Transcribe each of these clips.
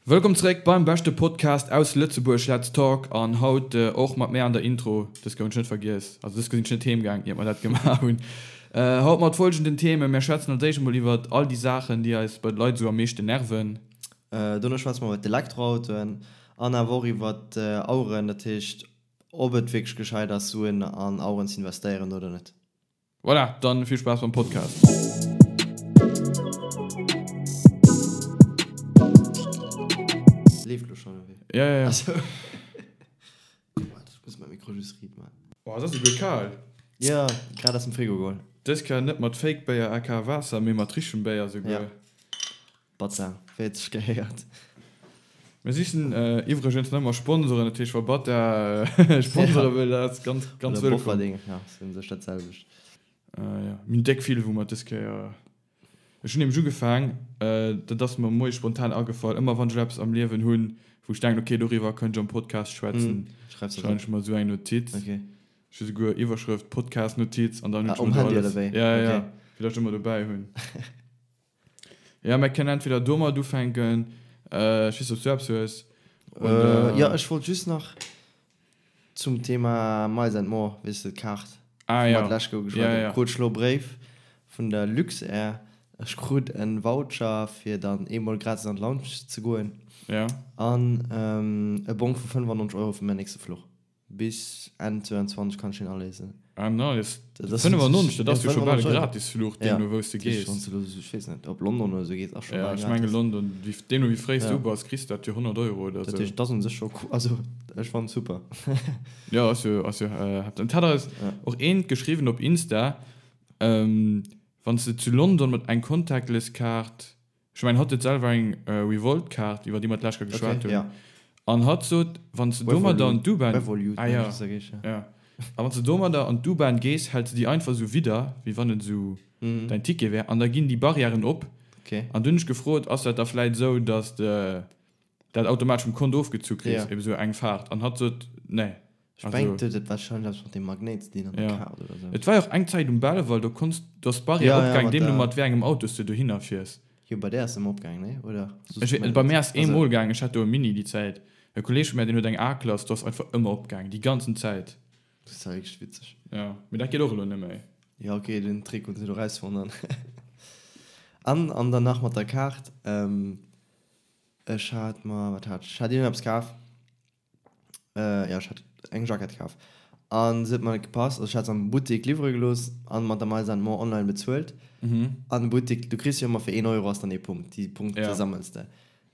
Wëllkomm zeréck beim beschte Podcast aus Lëtzebuerg, Let's Talk! An haut och mat mär an der Intro, dës gouf ech net vergiess, also dës sinn ech net heem gaang iert mer dat gemaach hunn. Haut mat folgenden Themen, Mär schwätzen als éischt emol iwwert all déi Saachen déi eis bei de Leit esou am meeschten nerven. Dono schwätze mer iwwert d'Elektroautoen an awer och iwwert Aueren, dat heescht ob et wierklech gescheit ass Suen an Aueren ze investéieren oder net. Voilà, dann vill Spaass beim Podcast. Leeft lo schon oder wéi? Ja, ja, ja. Achso. Waart, ech muss mäi Mikro just riit man. Oh, et ass esouguer kal. Ja, grad aus dem Frigo geholl. Dës Kéier net mat Fake Béier aka Waasser, mee mat richtegem Béier esouguer. Ja. Batza, wéi et sech gehéiert. Mir sichen iwwregens nach ëmmer Sponsoren, dat heescht wa Batza Sponsore wëll, dat ass ganz, ganz Oder wëllkomm. Bofferding, ja, ass un sech dat selwecht. Jo, mir hunn déck vill, wou mer dës Kéier, ech hunn nämlech ugefaang, dat ass mer moies spontan agefall, ëmmer wann ech elo eppes am Liewen hunn, wou ech denken, ok, doriwwer kënnt ech am Podcast schwätzen, schreiwen ech mer esou eng Notiz. Ech hu souguer Iwwerschrëft, Podcast-Notiz an dann hunn ech mer do alles, ja, ja, fir datt ech ëmmer dobäi hunn. Ja, mer kënnen entweder domat ufänken, ech weess net, ob s du eppes hues, oder. Jo, ech wollt just nach zum Thema Miles and More, weess de, d'Kaart, Ah, wou ja. mer d'lescht Joer geschwat Ja, hunn. ja. Krut ech elo e Bréif vun der Luxair, ech krut e Voucher, fir dann eemol gratis an d'Lounge ze goen Ja. an e Bong vu 95 Euro fir mäin nächste Fluch. Bis Enn 22 kann ech deen aléisen. Ah nice. Dat ass 95, dat ass jo scho bal e 95 Euro. Gratisfluch, deemno wou s de gees. Wann s de elo, ech weess net, op London oder esou gees, ass scho Ja, bal ech menge gratis. London, wéi, deemno wéi fréi s du Ja. bass, kriss de dat fir 100 Euro oder Dat esou. heescht, et ass un sech scho cool, also ech fannen et super. Jo, ass jo, ass jo heftig. Et hat eis Ja. och eent geschriwwen op Insta, wann s de zu London mat eng Contactless-Kaart, Ech mengen, hatt huet selwer eng Revolt-Kaart, iwwer déi mer d'lescht Kéier geschwat Okay, hunn. ja. An hatt sot, wann s de domadder an d'U-Bahn. Revolut, Ah ja, mengen ech, dat heescht, ja. ja. A wann s de domadder an d'U-Bahn gees, hält se déi einfach esou widder, wéi wann et esou däin Ticket wär, an da ginn déi Barrièren op. Okay. An dunn hunn ech gefrot, ass dat da vläit esou, datt de dat automatesch vum Kont ofgezu kriss, Ja. eben esou eng Faart? An hatt sot, nee. Ech mengen, et huet warscheinlech eppes mat dem Magnéit ze dinn an der Ja. Kaart oder sou. Et war jo och eng Zäit um Belval, do konns, do ass d'Barrière Ja, ja, opgaang, mat deemno der. mat wéi engem Auto s de dohinner fiers. Jo, bei där ass se ëmmer opgaang, nee? Oder? Soss Ech, meng bei mär ass Also. eemol gaang, ech hat do e Mini déi Zäit. E Kolleeg vu mär, deen huet eng A-Klass, do ass einfach ëmmer opgaang, déi ganzen Zäit. Dat ass ja wierklech witzeg. Ja, mee dat geet och elo net méi. Jo, okay, den Trick hunn se do rausfonnt an. An, an dann nach mat der Kaart, ech hat mer, wat hat ech? Ech hat iergendeppes kaf. Äh, ja, ech hat eng Jackett kaf. An se huet mer net gepasst. Also ech hat se am Buttek liwwere gelooss an mat der Miles and More online bezuelt. Mhm. An de Buttek, du kriss jo ëmmer fir een Euro ass dann ee Punkt. Déi Punkte Ja. sammels de.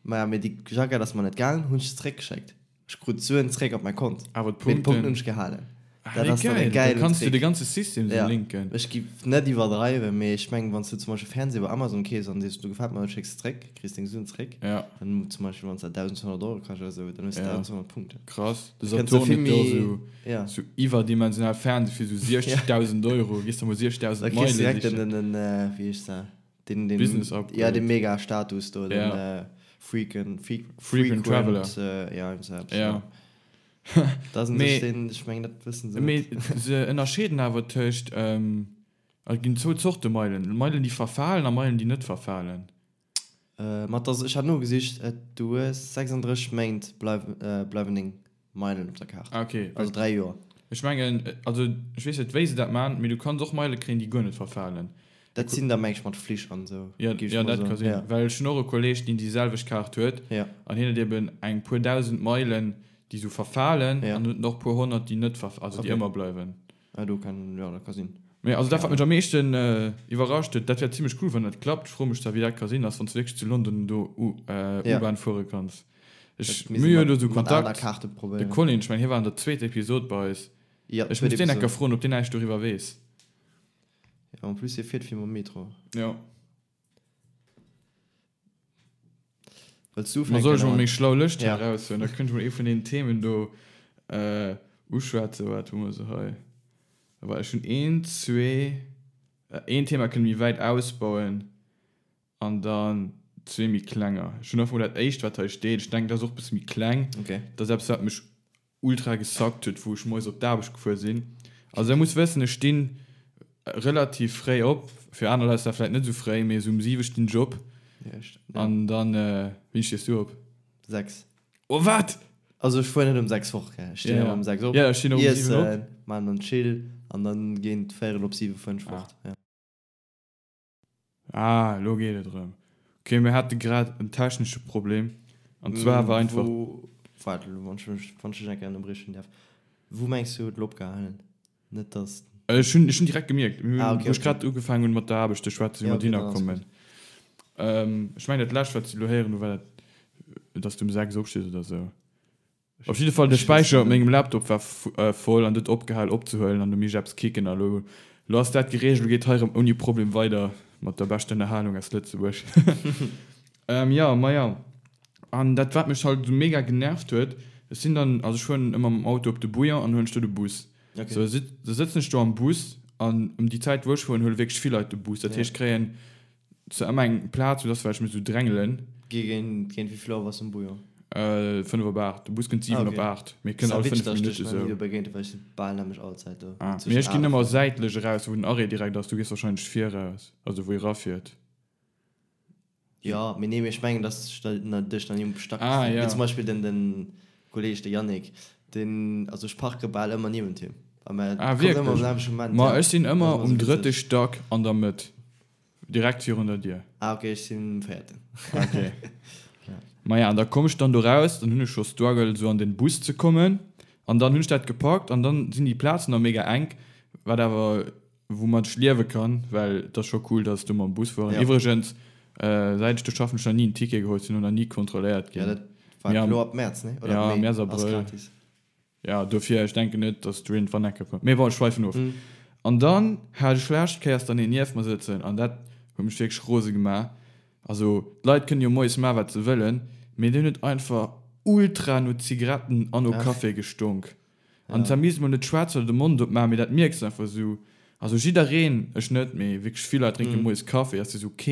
Maja, mee déi Jackett ass mer net gaangen, hunn ech se zeréckgeschéckt. Ech krut d'Suen zeréck op mäi Kont. Awer Mee d'Punkten. d'Punkten hunn ech gehalen. Ah, Dat wéi ass dann e geil! Da gäilen kanns du Trick. de ganze System sou Ja, linken. ech giff net iwwerdreiwen, mee ech mengen, wann s du zum Beispill Fernseh bei Amazon keefs an sees, du gefält mer net, schécks se zréck, kriss deng Suen zréck. Ja. Dann zum Beispill, wann s dat 1.200 Euro kascht oder sou, dann hues du Ja. 1.200 Punkten. Krass. De Da kënns du Saturn vill huet jo méi, sou, ja. sou iwwerdimensional Fernseh fir sou 60.000 Euro. Gees der mol 60.000 Da kriss Meile du direkt den, sichen. den, den, wéi heescht se? Den, den, Business ja, Upgrade. den Mega-Status do, den, Ja. Frequent, Frequent Frequent Traveler. ja, irgend sou eppes, Ja. ja. Da sinn Mee, sech den, ech mengen, dat wëssen se mee net. se ënnerscheeden awer tëscht, et ginn zwou Zorte Meilen, Meilen déi verfalen a Meilen déi net verfalen. Ma et ass, ech hat nogesicht, et, du hues 36 Méint bleiwen, bleiwen deng Meilen op der Kaart. Ah okay. Also 3 Joer. Ech mengen, also ech weess net wéi se dat man, mee du kanns och Meile kréien déi guer net verfalen. Dat sinn da meng ech mat Flich an esou, Jo, géif ech jo mol dat ka soen. sinn, Ja. well ech hunn och e Kolleeg deen déi selwecht Kaart huet Ja. an hien huet eben eng puer 1.000 Meilen déi sou verfalen Ja. an huet och puer 100 déi net verf, also déi Okay. ëmmer bleiwen. Ah do kann, jo dat ka sinn. Mee also dat Keng wat mech Ahnung. am meeschten iwwerrascht huet, dat wär zimmlech cool wann dat klappt, ech froe mech zwar wéi dat ka sinn, ass wann s du wierklech zu London do U Ja. U-Bahn fuere kanns. Ech, Dat misst mir hu ee jo do mat sou mat aner Kontakt, Kaarte de probéieren. Colin, ech mengen hie war an der zweeter Episod bei eis, Ja, ech zweet muss deen eng Episod. Kéier froen ob deen näischt doriwwer weess. Ja, en plus hie fiert vill mam Metro. Ja. Wëlls du Ma soll ufänken ech mol oder? meng schlau Lëscht hei Ja. eraushuelen? Da kënnt ech mol ee vun deenen Themen do uschwätzen. Waart, hu mer se hei? Well ech hunn een, zwee, een Thema kënne méi wäit ausbauen an dann zwee méi klenger. Ech hunn einfach mol dat éischt, wat hei steet. Ech denken, dat ass och e bësse méi kleng. Okay. Dat ass eppes, wat mech ultra gesackt huet, wou ech moies op d'Aarbecht gefuer sinn. Also der muss wëssen, ech stinn relativ fréi op, fir aner Leit ass dat vläit net esou fréi, mee esou um 7 stinn ech op. Ja, ech, ja. An dann, wéini stees du op? 6. Oh wat? Also ech fuer net um 6 fort, gell? Ech stinn Ja, ëmmer um 6 op, ja, ech stinn och um 7 op. iessen, maachen dann chill an dann géint véierel op 7 fueren ech Ah. fort, ja. Ah, elo geet et erëm. Ok, mir hate grad en technesche Problem an zwar war einfach. Wou, waart elo, wann ech mech, wann ech dech eng Kéier ënnerbriechen däerf, wou mengs du huet elo opgehalen? Net dass. Ech hunn, ech hunn direkt gemierkt, mir hunn, Ah, okay, wou ech okay. grad ugefaangen hunn mat der Aarbecht ze schwätzen, wéi Ja, mer okay, dohinner dann ass kommen. gutt. Ech mengen dat lescht wat ech elo héieren hu war dat, dass du um 6 opstees oder sou. Ech, Op jidde Fall de ech weess Späicher net op méi. mengem Laptop war voll an huet opgehal opzehuelen an du misst eppes kicken a lo lo ass dat gereegelt, lo geet hei erëm ouni Problem weider mat der beschter Ënnerhalung aus Lëtzebuerg. Jo, maja an dat wat mech halt esou mega genervt huet, ech sinn dann, also ech fueren ëmmer mam Auto op de Bouillon an huelen ech do de Bus. Okay. Sou da sëtzen ech do am Bus an ëm déi Zäit wou ech fueren huele wierklech vill Leit de Bus, dat Ja. heescht ech kréien Zu ëmmer eng Plaz, sou dass well ech mech sou drängelen. Géint wéi vill Auer bass du um Bouillon? 5 op 8. De Bus kënnt 7 Ah, op okay. 8, mee kënnt Ass all witzeg, 5 dass ech dech Minutte nach ni sou. do begéint hunn, well ech sinn bal nämlech all Zäit do. Ah, mee Zwëschen ech ginn 8 a ëmmer 5. säitlech eraus, wou den Arrêt direkt ass. Du gees wahrscheinlech viraus, also wou ee rafiert. Jo, mee nee, mee ech mengen, dass ech da dech nach ni um Stack Ah, gesinn hunn. Wéi ja. zum Beispill den, den Kolleg, de Yannick, deen, also ech parke bal ëmmer niewent him. A mä Ah, kommt ëmmer am wierklech? selwechte Moment, Ma ja. ech sinn Dat ass ëmmer ëmmer um sou drëtte witzeg. Stack an der Mëtt. Direkt virun der Dier. Ah ok, ech sinn um véierten. Ok. Maja, an da komm ech dann do raus, dann hunn ech scho Struggle sou an den Bus ze kommen an dann hunn ech dat gepackt an dann sinn déi Plazen nach mega enk, wat awer woumat ech liewe kann, well et ass scho cool, dass do mam Bus fueren. Ja. Iwwregens, säit ech do schaffen, hunn ech nach ni en Ticket geholl, sinn och nach ni kontrolléiert Ja, ginn. dat war Mee am, elo ab Mäerz, ne? Oder ab ja, Mee Mäerz, ass Abrëll. gratis. Ja, dofir, ech denken net, dass du iergendwann eng Kéier kommt. Mee bon, ech schweifen of. An dann hat ech lescht Kéiers dann een nieft mer sëtzen an dat huet mech wierklech rose gemaach. Also, d'Leit kënnen jo moies maachen, wat se wëllen, mee deen huet einfach ultra no Zigaretten an no Ach. Café gestonk. An Ja. zwar misst mol net schwätzen oder de Mond opmaachen, mee dat mierks de einfach esou. Also jiddereen, ech net, mee wierklech vill Leit drénke moies Café, ass jo esou ok,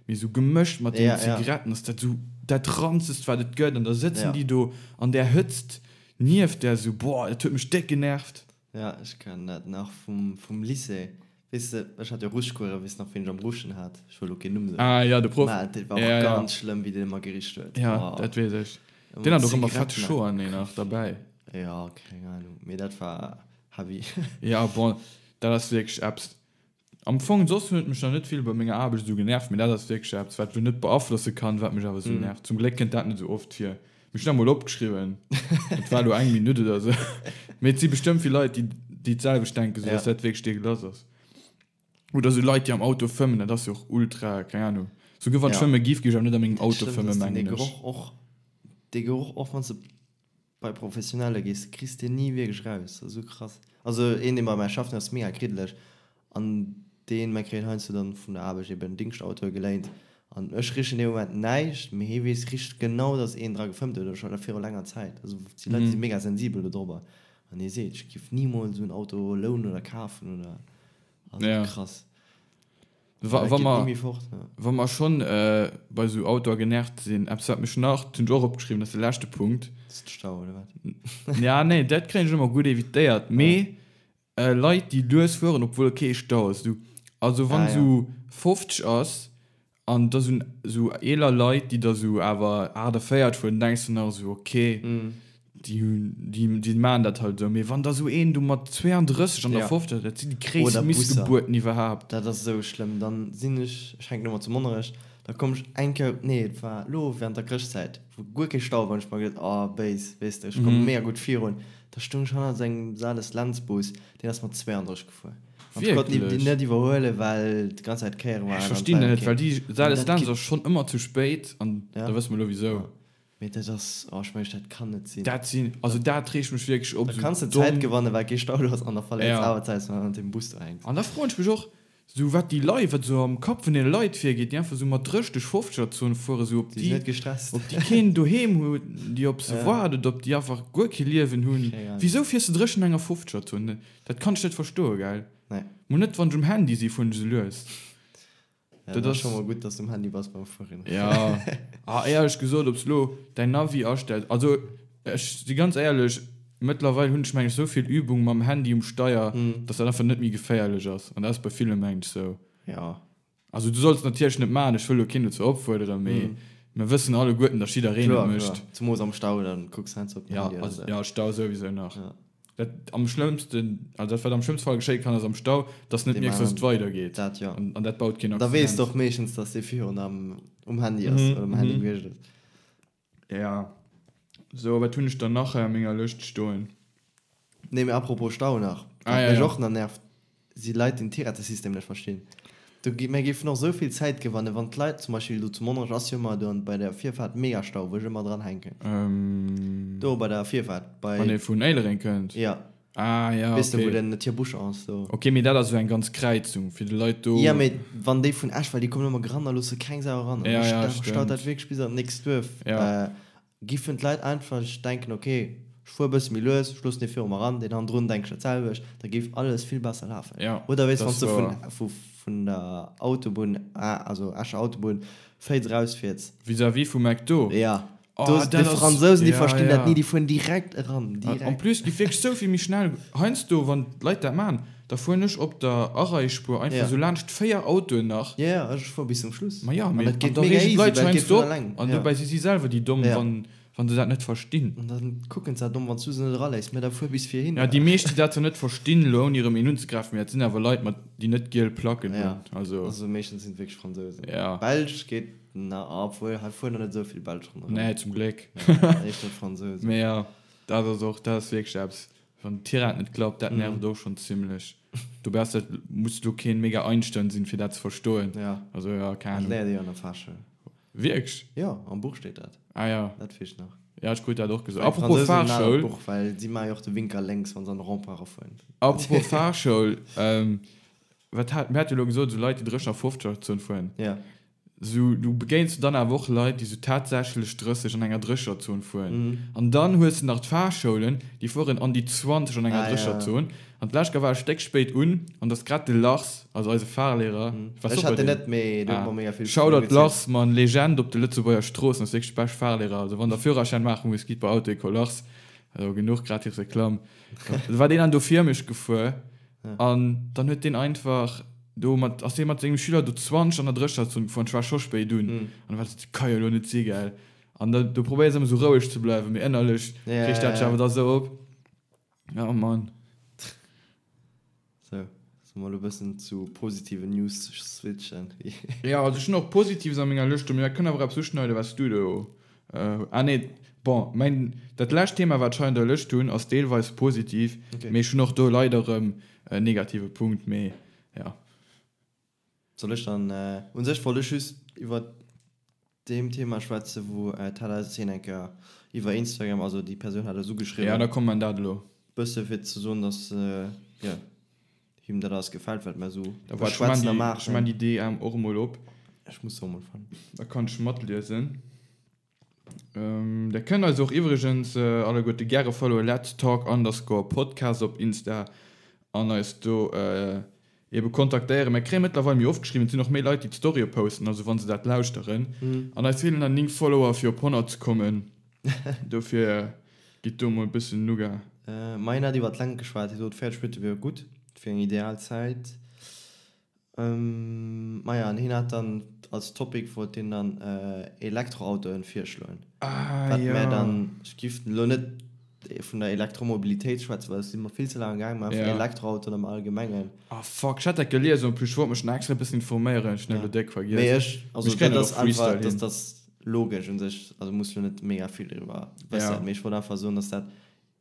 mee esou gemëscht mat den Ja, ja. Zigaretten ass dat esou dat ranzegst, wat et gëtt. An da sëtzen Ja. déi do an där Hëtzt Nieft där esou, boah, dat huet mech déck genervt. Ja, ech kennen dat nach vum, vum Lycée. Weess de, ech hat jo Ruschcoursen, weess nach, ween ech am Ruschen hat? Ech wëll lo keen Numm soen. Ah ja, de Proff. Mä dat war och Ja, ja. ganz schlëmm, wéi deen ëmmer gericht huet. Ja, Oh. dat weess ech. Ëmmer Deen hat och ëmmer fett Zigaretten. Schoer, nee, nach derbäi. Ja, keng Ahnung, mee dat war heavy. Ja, bon, dat ass wierklech eppes, Am Fong, soss huet mech nach net vill bei menger Aarbecht esou genervt, mee dat ass wierklech eppes, wat ech lo net beaflosse kann, wat mech awer esou nervt. Zum Gléck kënnt dat net esou oft vir. Mee ech hunn dat mol opgeschriwwen, et war elo eng Minutt oder esou. Mee et si bestëmmt vill Leit, déi déi d'selwecht denken, esou dass dat wierklech deegelass ass. Oder esou Leit, déi am Auto fëmmen, dat ass jo och ultra, keng Ahnung. Souguer wann ech fëmme giff, géif ech awer net a mengem Auto fëmmen, mengen Dee ech. Geroch och, dee Geroch och, wann s de Bei Professionelle gees kriss de ni wierklech raus, dat ass esou krass. Also een deen bei mär schafft, deen ass mega kriddeleg an deen, mär kréien heiansdo dann vun der Aarbecht eben Dingschtautoe geléint an ech richen dee Moment näischt, mee hee weess richt genau dass een dra gefëmmt huet oder scho viru laanger Zäit. Also déi Leit si mega sensibel do drobber an hee seet, ech giff nimools esou en Auto lounen oder kafen oder, also krass. Wa, wa mer, wa mer schonn bei esou Autoe genervt sinn, eppes wat mech nach, dat hunn ech och opgeschriwwen, dat ass de leschte Punkt. Dat ass de Stau, oder wat? Ja, nee, dat kréien ech ëmmer gutt evitéiert, mee Leit, déi lues fueren, obwuel kee Stau ass. Du, also wann esou 50 ass an da sinn esou eeler Leit, déi da esou awer 48 fueren, denks de nach esou, okay, Déi hunn, déi, déi maachen dat halt esou. Mee wann da sou een do mat 32 an der Ja. 50, dat sinn déi gréisst Oder Busser. Missgebuerten iwwerhaapt. Dat ass esou schlëmm. Dann sinn ech, ech hänken ëmmer zu Monnerech, da komm ech eng Kéier, nee et war elo während der Chrëschtzäit, wou guer kee Stau war, hunn ech mer geduet, oh béis, weess de, ech komme mega gutt virun. Da stoung ech hannert esou engem Sales-Lentz-Bus, deen ass mat 32 gefuer. An ech konnt déi Wierklech? net iwwerhuelen, well déi ganz Zäit Kéiere waren Ech an et verstinn war dat net, okay. well déi An dat Sales-Lentz geet, ass schonn ëmmer zu spéit an ja, da wësse mer elo wisou. ja. Mee dat ass, oh ech mengen dat kann net sinn. Dat sinn, also dat reegt mech wierklech op, Da esou kanns de Zäit domm. gewannen, well kee Stau do ass an da verléiers Ja. awer Zäit, well du an deem Bus do hänks. An da froen ech mech och, esou wat déi Leit, wat esou am Kapp vun deene Leit virgeet, déi einfach esou mat 30, 50er Zone fueren, esou ob Déi sinn déi, net gestresst. ob déi keen doheem hunn, déi op se Ja. waarden, oder ob déi einfach guer kee Liewen hunn. Keng Ahnung. Wisou fiers de 30 an enger 50er Zone? Dat kann ech net verstoen, gell? Nee. Mol net wann ech um Handy si fueren ech esou lues. Ja, Dat dat ass ass scho mol gutt, dass du um Handy bass beim Fueren. Ja. Ah, éierlech gesot, ob s lo däin Navi astells, also ech si ganz éierlech, mëttlerweil hunn ech meng ech esou vill Übung mam Handy um Steier, dass dat einfach net méi geféierlech ass. An dat ass bei ville meng ech sou. Ja. Also du solls natierlech net maachen, ech wëll lo keen dozou opfuerderen, mee. Mir wëssen alleguerten, datt jiddereen et mécht. Kloer, zemoos am Stau, dann kucks heiansdo op den Handy oder sou. Ja, Stau souwisou nach. Dat am schlëmmsten, also dat wat am schlëmmste Fall geschéie kann, ass am Stau, datt s net mierks, datt et weidergeet. Dat jo. An dat baut keen Accident. Da weess de och meeschtens, datt dee virun am um Handy ass oder um Handy gewiescht ass. Ja. Sou, wat hunn ech dann nach hei a menger Lëscht stoen? Nee, mee apropos Stau nach, wat mech och nach nervt, si Leit, déi den Tirettesystem net verstinn. Do gi, mir géifen och esou vill Zäit gewannen, wann d'Leit, zum Beispill do zu Monnerech ass jo ëmmer do bei der Virfaart mega Stau, wou ech ëmmer dran hänken. Do bei der Virfaart, bei. Wann ee vun Éilereng kënnt? Ja. Ah, ja, Weess de, wou den Tierbusch ass do. Ok, mee dat ass esou eng ganz Kräizung fir de Leit do. Ja, mee wann déi vun Esch, well déi kommen ëmmer gerannt a loosse keng Sau eran. Ja, ja, stemmt. Staut dat wierklech bis an d'nächst Duerf. Ja. Giffen d'Leit einfach denken, ok, ech fuer e bësse méi lues, ech loossen dee viru mer eran, deen hannendrun denkt ech dat selwecht, da géif alles vill besser lafen. Ja, Oder weess, wann s de vun, vun der Autobunn, also Escher Autobunn, Féiz erausfiers. Vis-à-vis vum McDo? Ja. Oh, do, déi Fransousen, déi verstinn dat ni, déi fueren direkt eran, direkt. En plus, déi wierklech sou vill méi schnell. Heiansdo, wann d'Leit dat maachen, da fueren ech op der Areispuer einfach sou laanscht 4 Autoen nach. Ja, ja, ech fuer bis zum Schluss. Ma ja, mee an da reegen d'Leit sech heiansdo op an dobäi si si selwer déi Domm, wann wann se dat net verstinn. An da kucken se domm, wann s du se net eraléiss. Mä da fuer bis vir hin. Ja, déi meescht, déi dat zwar net verstinn, elo ouni erëm een unzegräifen, mee dat sinn awer Leit mat, déi net giel Placken hunn. Also. Also meeschtens sinn et wierklech Fransousen. Ja. Belsch geet na, obwuel hei fueren der net esou vill Belsch ronderëm. Nee, zum Gléck. Éischter Fransousen. Mee jo, dat ass och, dat ass wierklech eppes, wann d'Tirette net klappt, dat nervt och schonn zimlech. Dobäi ass dat, muss elo keen mega Einstein sinn, fir dat ze verstoen. Ja. Also jo, keng Ahnung. Dat léiert ee jo an der Fahrschule. Wierklech? Jo, am Buch steet dat. Ah ja. Dat weess ech nach. Ja, ech krut dat och gesot. Apropos Fahrschoul. Buch, well si maache jo och de Winker lénks, wa se an de Rond-point erafueren. Apropos Fahrschoul, wat hat, mir hate jo elo gesot, esou Leit, déi 30 a 50er Zon fueren. Ja. Esou, du begéins dann awer och Leit, déi esou tatsächlech 30 an enger 30er Zon fueren. An dann hues de nach d'Fahrschoulen, déi fueren an déi 20 an enger 30er Zon. An d'lescht Kéier war ech déck spéit un, an et ass grad de Lars, also eise Fahrlehrer, war Ech hat den net, mee du huet mer mega vill Shoutout Lars, Mann, Legend op de Lëtzebuerger Stroossen, ass wierklech bescht Fahrlehrer, also wann der Führerschäin maache musst, gitt bei Auto-École Lars, also genuch gratis Reklamm. Da war deen dann do vir mech gefuer, an dann huet deen einfach do mat, ass dee mat sengem Schüler do 20 an der Drécherzon gefuer, an ech war scho spéit un, an da war dat ka jo elo net si, gell, an da do probéiers ëmmer sou roueg ze bleiwen, mee ënnerlech reegt dat dech awer da sou op. Oh Mann. Sou, solle mer elo e bëssen zu positiven News switchen? Jo, also ech hunn och Positives a menger Lëscht do, mee dat kënnt awer eppes uschneiden, wat s du do, ah nee, bon, mäin, dat lescht Thema, wat ech hei an der Lëscht hunn, ass deelweis positiv, mee ech hunn och do leider erëm en negative Punkt, mee jo. Soll ech dann, u sech wollt ech just iwwer deem Thema schwätzen, wou d'Hella Zeen eng Kéier iwwer Instagram, also déi Persoun hat eis ugeschriwwen. Ja, da komm man dat elo. Bësse fir ze soen, dass, jo, him dat alles gefält, wat mer esou Da waart, ech man beschwätzen a déi, ech man maachen. déi DM och emol op. Ech muss se och emol fannen. Da kann ech matliesen. Der kënnt eis och iwwregens alleguerte gäre followen, let's talk underscore podcast op Insta an eis do ebe kontaktéieren. Mir kréie mëttlerweil méi oft geschriwwen, et sinn och méi Leit déi d'Storye posten, also wa se dat lauschteren. An eis feelen nach 9 Follower fir op 100 ze kommen, dofir gitt do mol e bëssen Nougat. Ma hien hat iwwer d'Längt geschwat, hie sot 40 Minutte wier gutt, dat wier eng ideal Zäit. Maja, an hien hat dann als Topic wollt hien dann Elektroautoen virschloen. Ah, Wat ja. mär dann, ech giff elo net vun der Elektromobilitéit schwätzen, well do si mer vill ze laang gaang, mä einfach Ja. Elektroautoen am Allgemengen. Ah fuck, ech hat dat gelies en plus, ech wollt mech nach extra e bëssen informéieren, ech hunn dat elo déck vergiess. Mee ech, also Mee ech kréien dat dat ass och Freestyle einfach, hin. dat ass logesch un sech, also muss elo net mega vill driwwer wëssen, Ja. mee ech wollt einfach soen, dass dat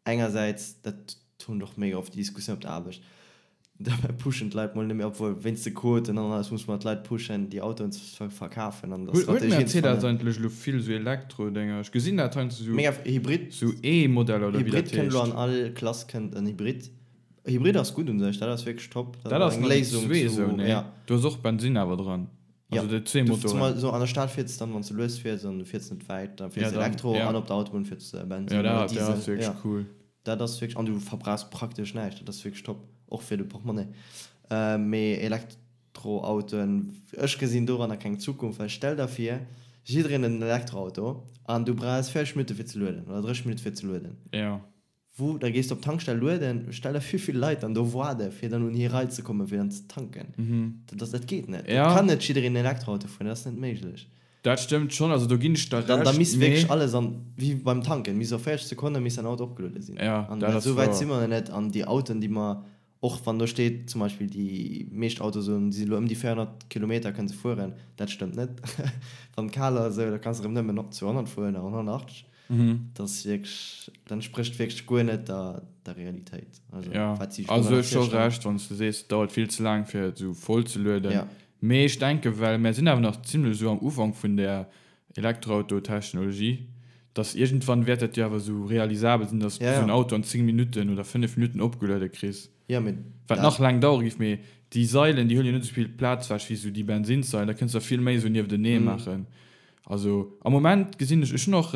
Engersäits, dat hunn och mega oft déi Diskussioun op der Aarbecht, dobäi pushen d'Leit mol net méi, obwuel wéinst de Quoten an alles muss mer d'Leit pushen, déi Autoen ze verkafen an der Huet Strategie ze Mercedes fannen. eigentlech elo vill esou Elektro-Dénger? Ech gesinn dat heiansdo esou, Mega Hybrid, esou E-Modeller oder wéi Hybrid dat kënnt elo heescht. an all Klass kënnt en Hybrid. Hybrid ass gutt un sech, dat ass wierklech top, dat Dat ass ass eng nach déi Léisung zwee zu, esou, nee? ja. Do ass och Bensinn awer dran, Ja, also déi zwee du, Motoren. zumal so an der Stad fiers dann, wann s du lues fiers an du fiers net wäit, da fiers Ja, de dann, Elektro ja. an op der Autobunn fiers de Bensinn Ja, oder dat, dat ass Diesel, wierklech ja. cool. Dat ass wierklech, an du verbrauchs praktesch näischt, dat ass wierklech top, och fir de Portemonnaie. Mee Elektroautoen, ech gesinn doranner keng Zukunft, well stell der vir, jiddereen huet en Elektroauto an du brauchs 40 Minutte fir ze lueden oder 30 Minutte fir ze lueden. Ja. Wou, da gees de op d'Tankstell lueden, stell der vir wéi vill Leit dann do waarde fir dann un hir Rei ze kommen fir dann ze tanken. Dat ass, dat geet net. Et Ja. kann net jiddereen en Elektroauto fueren, dat ass net méiglech. Dat stëmmt schonn, also do ginn ech der Dann, da Recht, misst wierklech mee. alles an, wéi beim Tanken, misst op 40 Sekonne misst däin Auto opgeluede sinn. Ja, An dat dat, ass esou wäit wouer. si mer nach net. An déi Autoen, déi mer, och wann do steet, zum Beispill déi meescht Autoe soen, si elo ëm déi 400 Kilometer kënne se fueren, dat stëmmt net. Wann et kal ass, esou, da kanns de erëm nëmmen 200 fueren oder 180. Dat ass wierklech, dat entsprécht wierklech guer net der, der Realitéit. Also, Ja, wat si sech also domadder hues scho virstellen. Recht, wann s de sees, et dauert vill ze laang, fir et esou voll ze lueden. Ja. Mee ech denken, well mär sinn awer nach zimlech esou am Ufank vun där Elektroauto-Technologie, dass iergendwann wäert dat jo awer esou realisabel sinn, dass du Ja, esou en ja. Auto an 10 Minutten oder 5 Minutten opgeluede kriss. Ja, mee Wat dat. nach laang dauere géif, mee déi Sailen, déi huelen jo net esou vill Plaz ewech wéi esou déi Bensinssailen, da kënns de der vill méi esou nieftenee maachen. Also am Moment gesinn ech, ech hunn och,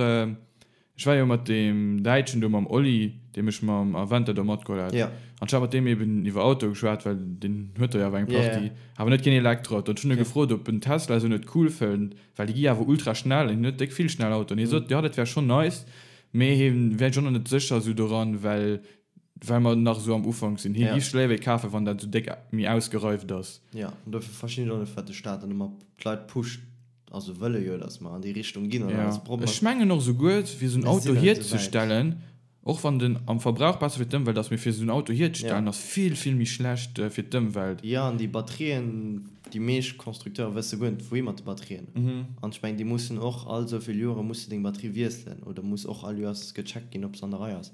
ech war jo mat deem Däitschen do, mam Oli, dee mech mam Aventador matgeholl hat, Ja. an ech hat mat deem eben iwwer Autoe geschwat, well deen huet der jo awer eng Ja, ja. Partie, awer net keen Elektroauto. An ech hunn e Okay. gefrot, ob en Tesla esou net cool fënnt, well déi gi awer ultra schnell an hien huet déck vill schnell Autoen. Hie sot, jo, dat wär schonn nice, mee hie wär sech och nach net sécher esou doran, well well mer nach esou am Ufank sinn. Hie Ja. géif sech léiwer ee kafen, wann dat esou déck méi ausgereift ass. Ja, an dofir verstinn ech och net, firwat de Staat dann ëmmer d'Leit pusht, Also wëlle jo, datt mer an déi Richtung ginn an alles Probleem. Ech mengen och esouguer, fir esou en Mir Auto sinn net esou wäit. hierzestellen, och wann den am Verbrauch besser fir d'Ëmwelt ass, mee fir esou en Auto hierzestellen Ja. ass vill, vill méi schlecht fir d'Ëmwelt. Jo, an déi Batterien, déi meescht Constructeure wësse guer net, wouhi mat de Batterien. An ech mengen, déi mussen och all esou vill Jore muss de deng Batterie wiesselen oder muss och all Joers gecheckt ginn, ob se an der Rei ass.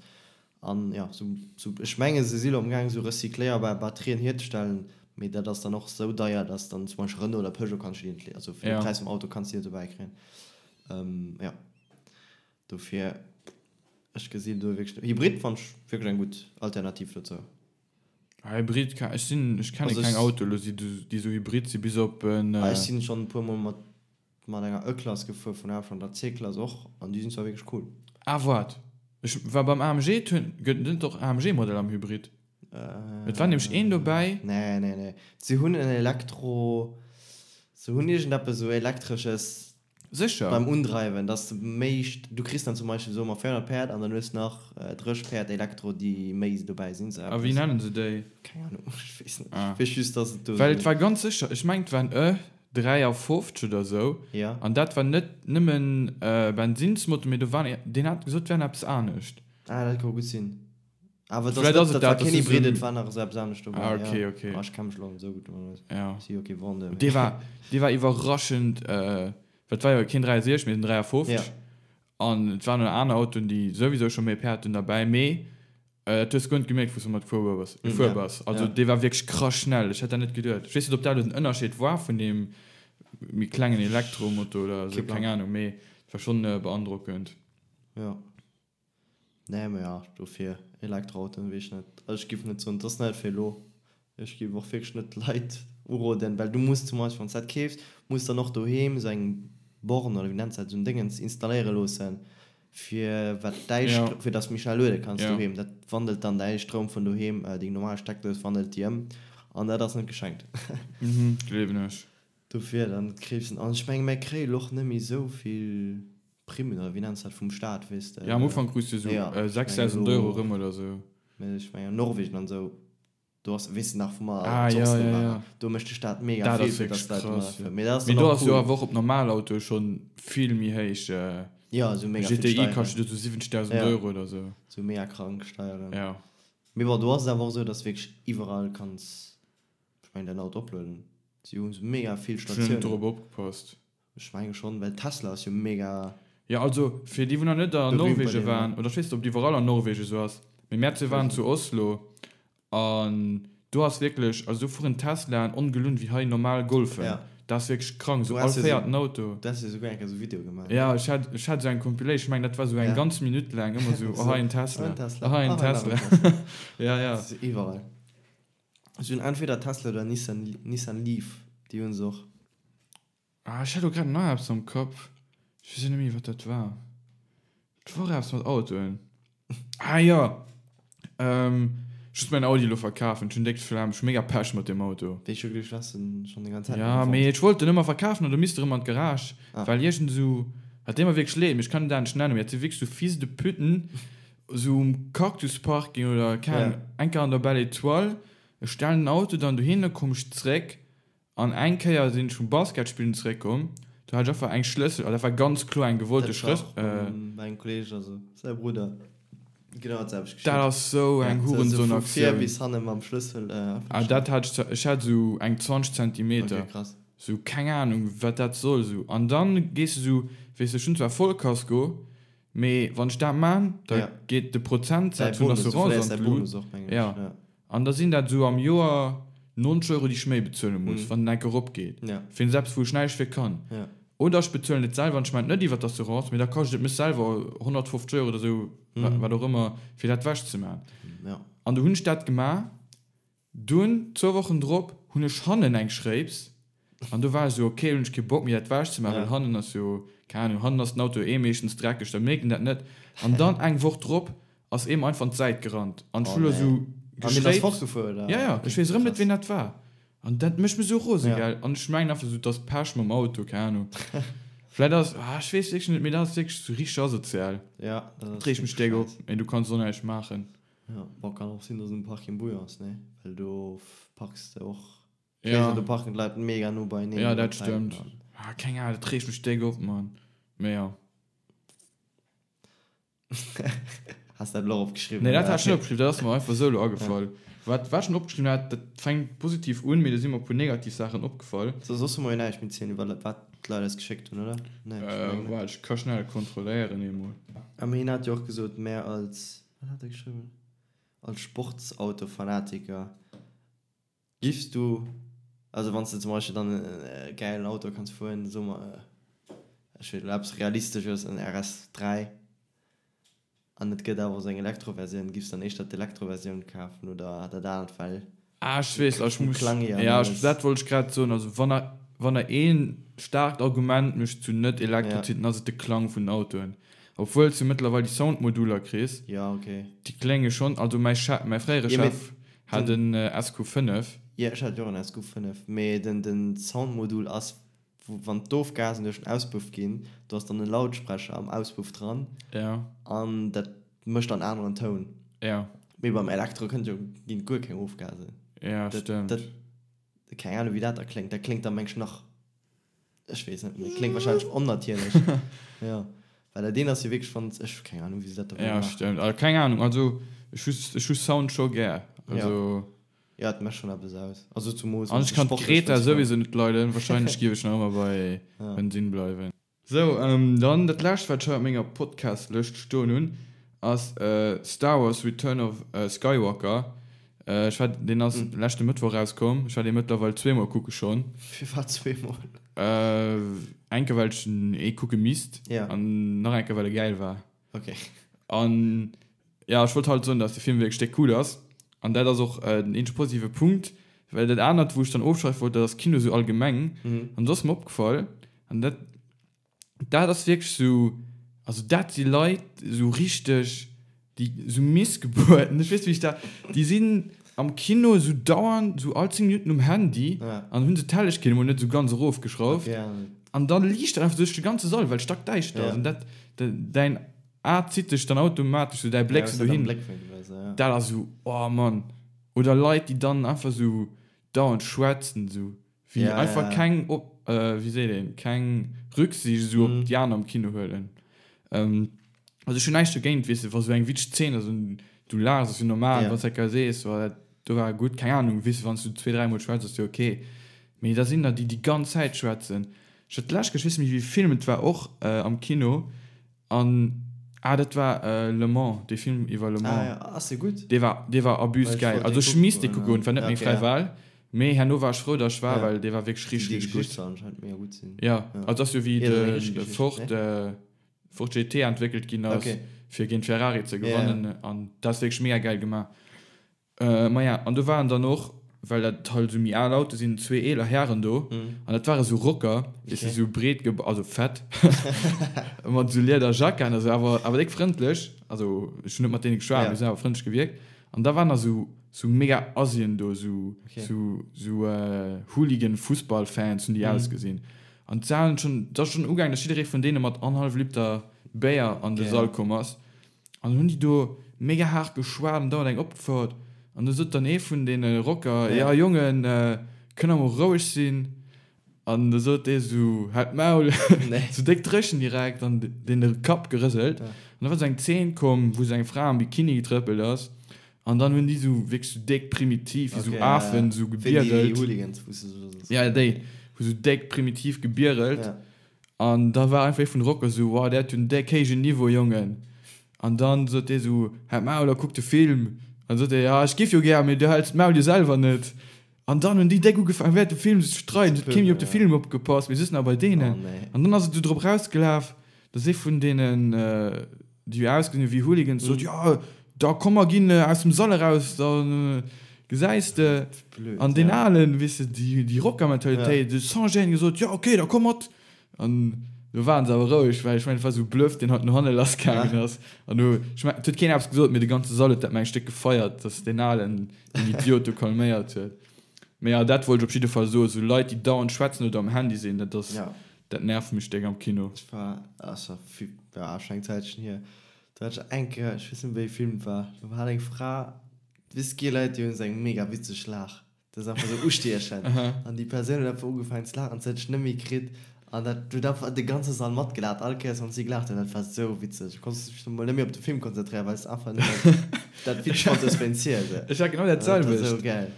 An jo, sou, sou, ech mengen, se si lo amgaang, sou recycléierbar Batterien hierzestellen, mee dat ass dann och sou deier, dass dann zum Beispill Renault oder Peugeot kanns du déi net, also fir de Ja. Präis vum Auto kanns du déi net dobäi kréien. Jo, dofir, ech gesinn do wierklech net. Hybrid fannen ech wierklech eng gutt Alternativ dozou. Ah, Hybrid, ech sinn, ech kenne Also keng ech. Autoe lo, déi sou hybrid sinn, bis op en. Ah, ech sinn schonn e puermol mat Mat enger E-Klass gefuer vun Aaf an der C-Klass och an déi sinn zwar wierklech cool. Ah waart, ech war beim AMG, et hunn, gëtt et net och AMG Modell am Hybrid? Et war nämlech een dobäi. Nee nee nee, se hunn en Elektro, se hunn iergendeppes esou Elektresches Sécher? beim Undreiwen, dass de méi, du kriss dann zum Beispill soe mer 400 Päerd an dann hues nach 30 Päerd Elektro déi méi dobäi sinn, sou A wéi eppes. nennen se déi? Keng Ahnung, ech weess net, Ah. ech weess just dass et do Well et sou. war ganz sécher, ech mengen et war en E 53 oder sou, Ja. an dat war net nëmmen Bensinnsmotor, mee do war, deen hat gesot, et wär eppes anescht. Ah, dat ka gutt sinn. Awer et ass Vläit net, ass et dat war dat, keen dass du Hybrid, sou et war nach esou eppes anescht dobäi, Ah, okay, ja. okay. Ah, ech kenne mech elo net esou gutt domat aus. Ja. Si jo kee Vendeur, mee. Dee war, dee war iwwerraschend, well et war jo keen 63, mee en 53. Ja. An et waren nach aner Autoen, déi souwisou scho méi Päerd hunn derbäi, mee dat hues de guer net gemierkt, wou s de mat gefuer bass. Gefuer Ja, bass. Also ja. dee war wierklech krass schnell. Ech hätt dat net geduet. Ech weess net, ob dat elo den Ënnerscheed war vun deem méi klengen Elektromotor oder Kee esou, Plang. keng Ahnung, mee et war schonn beandrockend. Ja. Nee, mee ja, dofir Elektroautoen, weess ech net. Also ech giff net soen, et ass net fir elo. Ech giff och wierklech net d'Leit uroden, well du muss zum Beispill, wann s dat keefs, muss dann och doheem esou eng Borne oder wéi nenns dat, esou en Déngens installéiere loossen, fir wat däi Ja. Stro, fir dass du méi schnell luede kanns Ja. doheem. Dat wandelt dann däi Stroum vun doheem, deng normal Steckdous wandelt déi ëm an dat ass net geschenkt. Mhm, gleewen ech. Dofir dann keefs en. An ech menge mär kréie lo och net méi esou vill Primmen oder wéi nenns dat vum Staat, weess de. Ja, am Ufank krus de esou Ja, ech mengen 6.000 Euro elo, erëm oder esou. mä ech mengen an Norwegen an esou, do ass, weess de nach wou mer Ah, zu ja, Oslo ja, waren, ja. do mécht de Staat mega Dat vill ass fir wierklech dass d'Leit domadder krass, jo. fueren. Mee dat ass Mee dann do och ass jo cool. awer och op normal Autoe schonn vill méi héich. Ja, esou mega vill GTI Steieren. kascht jo do sou 70.000 Ja, Euro oder esou. esou mega krank Steieren. Ja. Mee bon, do ass et awer och esou, dass wierklech iwwerall kanns, ech mengen, däin Auto oplueden. Si hu mega vill Ech hunn net Statiounen. dorop opgepasst. Ech menge schonn, well Tesla ass jo mega Jo, also fir déi wou nach net an berühmt bei Norwegen deenen, waren, ne? oder ech weess net ob et iwwerall an Norwegen esou ass, mee mär zwee Ech waren weess zu net. Oslo an do ass wierklech, also do fueren Teslaen ongelunn wéi hei normal Golfen. Ja. Dat ass wierklech krank, Du esou all has jo sou, véierten Auto. du has jo souguer eng Kéier esou Video gemaach, ne? Ja, ech hat, ech hat esou eng Compilation, ech mengen dat war esou eng Ja. ganz Minutt laang ëmmer esou, oh Esou, hei en oh Tesla, en Tesla, oh hei en oh hei nach en Tesla. Tesla. Ja, ja. Dat ass iwwerall. Si hunn entweder Tesla oder Nissan, Nissan Leaf, déi hunn se och. Ah, ech hat elo grad nach eppes am Kapp. Ech weess net méi, wat dat war. Et war eppes mat Autoen. Ah jo! Ech muss mäin Audi elo verkafen. Ech hunn déck d'Flemm. Ech hu mega Pech mat deem Auto. Wéi ech jo geduecht, du häss en schonn déi ganz Zäit Ja, net méi mee fonnt. ech wollt en ëmmer verkafen an du misst erëm an d'Garage, Ah. well iergend esou, hat deet mer wierklech leed, mee ech kann en dat net nennen, mee dat si wierklech sou Fils de puten, esou um Cactus-Parking oder keng Ahnung, Ja. eng Kéier an der Belle Étoile. Ech stellen den Auto dann dohinner, komm ech zréck, An eng Kéier sinn ech vum Basketspillen zeréckkomm, do Do hat ech einfach eng Schlëssel, an dat war ganz kloer eng gewollte Schlëssel. Dat war och bei engem Kolleeg, also säi Brudder, genau dat selwecht geschitt. Dat ass sou eng Hurensohn-Aktioun. Vu vir bis hanne mam Schlëssel. Ah, dat hat ech, ech hat sou eng 20 Zentimeter. Ok, krass. Sou, keng Ahnung, wat dat soll sou. An dann gees de sou, weess de, ech hunn zwar Vollkasko, mee wann ech dat maan, da geet de Prozentsaz vun der Assurance an d'Lut. Jo. An da sinn dat esou am Joer 90 Euro, déi ech méi bezuele muss, wann en enk eropgeet, fir eppes, wou ech näischt fir kann. Oder ech bezuelen et selwer an ech maachen et net iwwer d'Assurance, mee da kascht et mech selwer 150 Euro oder esou, wat och ëmmer, fir dat ewechzemaachen. An du hunn ech dat gemaach. Dunn, zwou Wochen drop, hunn ech hannen eng Schréips an do war ech esou, ok, hunn ech kee Bock méi dat ewech ze maachen, well hannen ass jo, keng Ahnung, hannen ass den Auto eh meeschtens dreckeg, da mierkt een dat net. An dann eng Woch drop ass ee mer einfach an d'Säit gerannt an ech hu lo esou geschréips. Ja, ja, ech weess erëm net ween dat war an dat mécht mech esou rose, gell. An ech mengen einfach esou, et ass Pech mam Auto, keng Ahnung, vläit ass, ah ech weess wierklech net, mee dat ass wierklech esou richteg asozial. Dat reegt mech déck op, mee du kanns och näischt maachen. Ja, bon, kann och sinn, dass um Parking Bouillon ass, ne? Well do parks de och. Ja. Do parken d'Leit mega no beieneen. Ja, dat stëmmt. Ah, keng Ahnung, dat reegt mech déck op, Mann. Mee ja. Has dat elo och opgeschriwwen? Nee, dat hat ech net opgeschriwwen, dat ass mer einfach esou elo agefall. Wat, wat ech schon opgeschriwwen hat, dat fänkt positiv un, mee do si mer e puer negativ Saachen opgefall. So, soss hu mer jo näischt méi zielen iwwer wat d'Leit eis geschéckt hunn, oder? Nee, ech mengen net. Waart, ech ka schnell kontrolléieren eemol. A mee hien hat jo och gesot, mär als. Wat hat e geschriwwen? Als Sportsautofanatiker giffs du, also wann s de zum Beispill dann e gäilen Auto kanns fueren, soe mer, ech weess net, eppes Realistesches, en RS 3, an et gëtt awer och sou eng Elektroversioun, giffs dann éischter d'Elektroversioun kafen oder dat anert, well Ah, ech weess, ech muss, ja, ech, dat wollt ech grad soen, also wann der, wann der ee staarkt Argument mech zu net Elektro zitt, dann ass et de Klang vun den Autoen. Obwuel s du mëttlerweil déi Soundmoduler kriss, déi klénge schonn, also mäi Chef, mäi fréiere Chef hat en SQ5. Jo, ech hat jo och en SQ5, mee den, den Soundmodul ass wou wann d'Ofgasen duerch den Auspuff ginn, do ass dann e Lautsprecher am Auspuff dran an dat mécht dann aneren Toun. Mee beim Elektro kënnt jo, ginn guer keng Ofgasen. Ja, stëmmt. Dat, keng Ahnung wéi dat da kléngt. Dat kléngt da meng ech nach, ech weess net, mee kléngt wahrscheinlech onnatierlech. Jo, well dat eent ass jo wierklech wann, ech hu keng Ahnung wéi se dat da wëlle maachen. Ja, stëmmt. Also keng Ahnung, also ech hu, ech hu Sound scho gär. Also. Ja, et mecht schon eppes aus. Also zumols An ech kann d'Greta souwisou net leiden, wahrscheinlech giff ech nach ëmmer bei Bensinn bleiwen. Sou, dann dat lescht wat ech hei op menger Podcast-Lëscht stoen hunn ass Star Wars Return of Skywalker. Ech war, deen ass leschte Mëttwoch erauskomm, ech war dee mëttlerweil zweemol kucke schonn. Firwat zweemol? Eng Kéier well ech en eh kucke misst an nach eng Kéier well e gäil war. Ok. An ja, ech wollt halt soen, dass de Film wierklech déck cool ass. An dat ass och den eenzege positive Punkt, well dat anert, wou ech dann ofschwäife wollt, dat ass Kino sou allgemeng. An do ass mer opgefall, an dat, dat ass wierklech sou, also dat si Leit, sou richteg, déi sou Missgebuerten, ech weess net, wéi ech dat, déi sinn am Kino sou dauernd, sou all 10 Minutten um Handy an hunn se d'Hellegkeet emol net sou ganz erofgeschrauft. An da liicht dat einfach duerch de ganze Sall, well et stackdäischter ass. An dat, däin A zitt dech dann automatesch sou, däi Bléck sou dohin. Dat ass sou, oh Mann. Oder Leit, déi dann einfach sou dauernd schwätzen, sou wéi einfach keng, wéi seet een, keng Rücksicht sou op déi aner am Kino huelen. Also ech hunn näischt dogéint, weess de, wa sou eng witzeg Zeen ass an du laachs, ass jo normal, wann s de eng Kéier sees, oh dat do war gutt, keng Ahnung, weess de, wann s du zwee, dräimol schwätz, ass jo ok. Mee da sinn der, déi déi ganz Zäit schwätzen. Ech hat d'lescht Kéier, ech weess net méi wéi ee Film et war, och am Kino an, ah dat war Le Mans, dee Film iwwer Le Mans. Ah jo, ass dee gutt? Dee war, dee war abuse gäil. Also ech misst dee kucke goen, et war net meng fräi Wahl, mee herno war ech frou, datt ech war, well dee war wierklech richteg, richteg gutt. Déi Geschicht soll anscheinend mega gutt sinn. Jo, also ass jo wéi de Ford. Ford GT entwéckelt ginn ass, fir géint Ferrari ze gewannen. An dat ass wierklech mega gäil gemaach. Maja, an do waren dann och, well dat halt esou méi al Autoe sinn, zwee eeler Hären do. An dat ware sou Rocker, weess de, sou breet ge-, also fett, mat esou Liederjacken a sou, awer, awer déck frëndlech. Also ech hunn net mat deene geschwat, mee se hunn awer frëndlech gewierkt. An da waren da sou, sou mega Asien do, sou, sou, sou Hooligan-Fussball-Fans hunn déi ausgesinn. An d'Salen schon, et ass schon ugaangen, dass jidderee vun deene mat annerhallef Liter Béier an de Sall komm ass. An dann hunn déi do mega haart geschwat an dauernd eng opgefouert. An du sot dann ee vun deene Rocker, Ja Jongen, kënnt der mol roueg sinn? An da sot dee sou, Halt d'Maul! Sou déck dréchen direkt an deen de Kapp gerëselt. An da war sou eng Zeen komm, wou sou eng Fra am Bikini getrëppelt ass. An dann hunn déi sou wierklech sou déck primitiv, wéi sou Afen, sou gebierelt. Ja, déi hu sou déck primitiv gebierelt. An da war einfach ee vun de Rocker sou, Wow, där huet jo en déck héijen Niveau, Jongen. An dann sot dee sou, Halt d'Maul a kuck de Film. An sot dee, Ja, ech giff jo gär, mee du häls d'Maul jo selwer net. An dann hunn déi déck ugefaangen während dem Film sech ze streiden, et huet kee méi op de Film opgepasst, mee just nach bei deenen. An dann ass et esou drop erausgelaf, dass ee vun deenen, déi ausgesinn hu wéi Hooligans, sot, Jo, da komm mer ginn aus dem Sall eraus, da gesäis de. An deen Alen, weess de, déi Rockermentalitéit, huet sans gêne gesot, Jo, okay, da komm mat. An do waren se awer roueg, well ech mengen, et war esou Bluff, deen halt no hanne lassgaangen ass. An do, ech mengen, et huet keen eppes gesot, mee de ganze Sall huet dat mengen ech déck gefeiert, dass deen Alen deen Idiot do calméiert huet. Mee jo, dat wollt ech op jidde Fall soen, esou Leit, déi dauernd schwätzen oder am Handy sinn, dat ass, dat nervt mech déck am Kino. Ech war, ass scho vill, ja, scho eng Zäitchen hier, do hat ech eng Kéier, ech weess net méi wéi ee Film et war, do hat eng Fra, weess, gi Leit, déi hunn esou eng mega witzeg Laach. Dat ass einfach sou ustiechend. An déi Persoun huet einfach ugefaangen ze laachen, se huet sech net méi kritt. An dat huet einfach de ganze Sall matgelaacht, all Kéiers wann si gelaacht huet. Dat war sou witzeg. Du konns dech mol net méi op de Film konzentréieren, well s de einfach nëmmen dat witzeg fonnt hues wéinst hir. Sou. Ech hat genau dat Dat war sou selwecht. geil.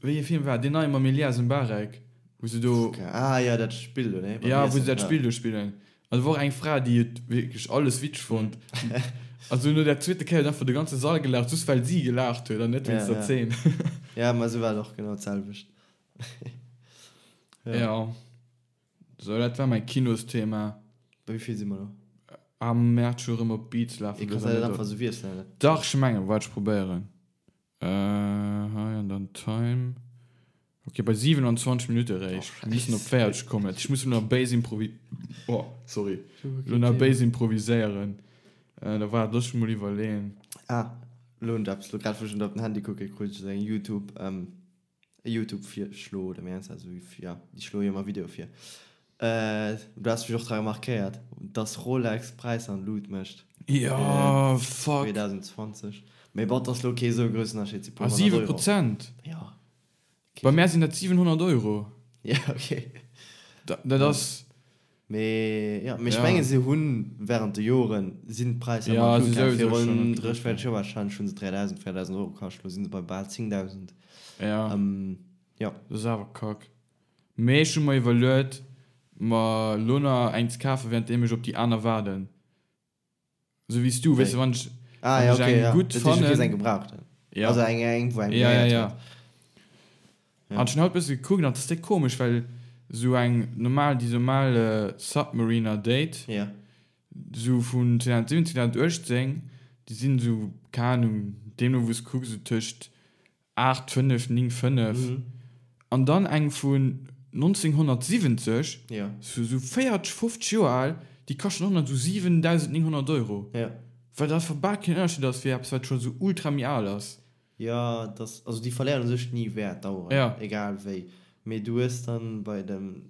Wéi ee Film war deen neie mam Elias Mbarek, wou se do. Ah jo, dat Spill do, ne? Ja, wou se dat Spill do spillen. An do war och eng Fra, déi huet wierklech alles witzeg fonnt. Also no der zweete Kéier huet einfach de ganze Sall gelaacht, just well si gelaacht huet an net wéinst der Zeen. Ja, ma esou war et och genau d'selwecht. Ja. Ja. Sou, dat war mäi Kinosthema. Bei wéi vill si mer elo? Am Mäerz scho rëm op Beats lafen. Kanns de dat einfach esou wiesselen? Dach, ech mengen, waart, ech probéieren. Hei an dann Time. Ok, bei 27 Minutte eréischt. Mir mussen op 40 kommen. Ech muss elo nach béis improvi-, oh, sorry, elo nach béis improviséieren. Da waart, looss mech mol iwwerleeën. Ah, elo hunn ech eppes, elo grad wou ech op den Handy kucken, krut ech esou eng Youtube, e Youtube-Virschlo oder wéi nenns de dat, esou, jo, déi schloe jo ëmmer Videoe vir. Du has mech och dra remarkéiert, dass Rolex d'Präisser an d'Lut mécht. Jo, fuck. 2020. Mee bon, 't ass lo kee sou groussen Ënnerscheed, si puer honnert Euro. Ah, 7%? Jo. Bei mär sinn dat 700 Euro. Ja, okay. Dat ass. Mee jo, mee ech menge se hunn während de Joren sinn d'Präisser ëmmer an d'Lut gaangen. Virun 30, 40 Joer warscheinlech hu se 3.000, 4.000 Euro kascht, lo si se bei bal 10.000. Ja. Jo. Dat ass awer kack. Mee ech hu mer iwwerluet, mer lo nach eng ze kafen, währenddeem ech op déi aner waarden. Sou wéi s du, weess de, wann ech, ah, ja, okay, eng ja. gutt fannen. Dat heescht, du kriss eng gebrauchten. Ja. Also eng, eng wou eng ja, ja, ja. Ja. An ech hunn haut bësse gekuckt an et ass déck komesch, well sou eng normal, déi normal Submariner Date, ja. sou vun 2017, 2018, déi sinn sou, keng Ahnung, deemno wou s kucks, sou tëscht 8, 5, 9, 5 an dann eng vun 1970, sou 40, 50 Joer al, déi kaschten och nach sou 7.900 Euro. Wat einfach bal keen Ënnerscheed ass fir eppes, wat scho sou ultra méi al ass. Jo, et ass, also déi verléieren u sech ni Wäert, d'Aueren, egal wéi. Mee du hues dann bei dem.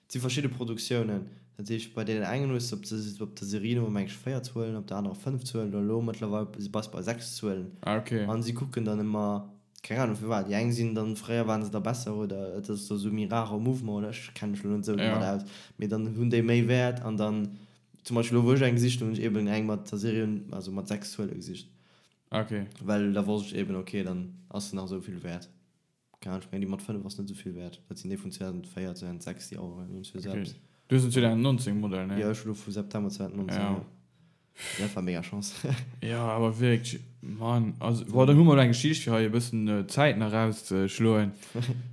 Et si verschidde Produktiounen. Dat heescht, bei deenen engen hues de op de op der Serienummer meng ech 4 Zuelen, op der anerer 5 Zuelen oder elo mëttlerweil bass bei 6 Zuelen. Ah ok. An si kucken dann ëmmer, keng Ahnung firwat, déi eng sinn dann, fréier waren se da besser oder et ass da sou méi rare Mouvement oder ech kenne mech elo net esou domat aus, mee dann hunn déi méi Wäert an dann zum Beispill elo wou ech eng gesicht hunn, hunn ech eben eng mat der Serien, also mat 6 Zuele gesicht. Ah ok. Well da wosst ech eben, ok dann ass se nach esou vill wäert. Keine Ahnung, ech mengen déi mat 5 ass net esou vill wäert. Dat sinn déi vun 2004, 2006, déi Aueren, déi hunn zwar selbst. Du hues en 2019 Modell, ne? Jo, ech hu lo vu September 2019, jo. Dat war mega Chance. Jo, awer wierklech, Mann, also, bon, dann hu mer elo eng Geschicht fir hei e bëssen Zäit nach erauszeschloen.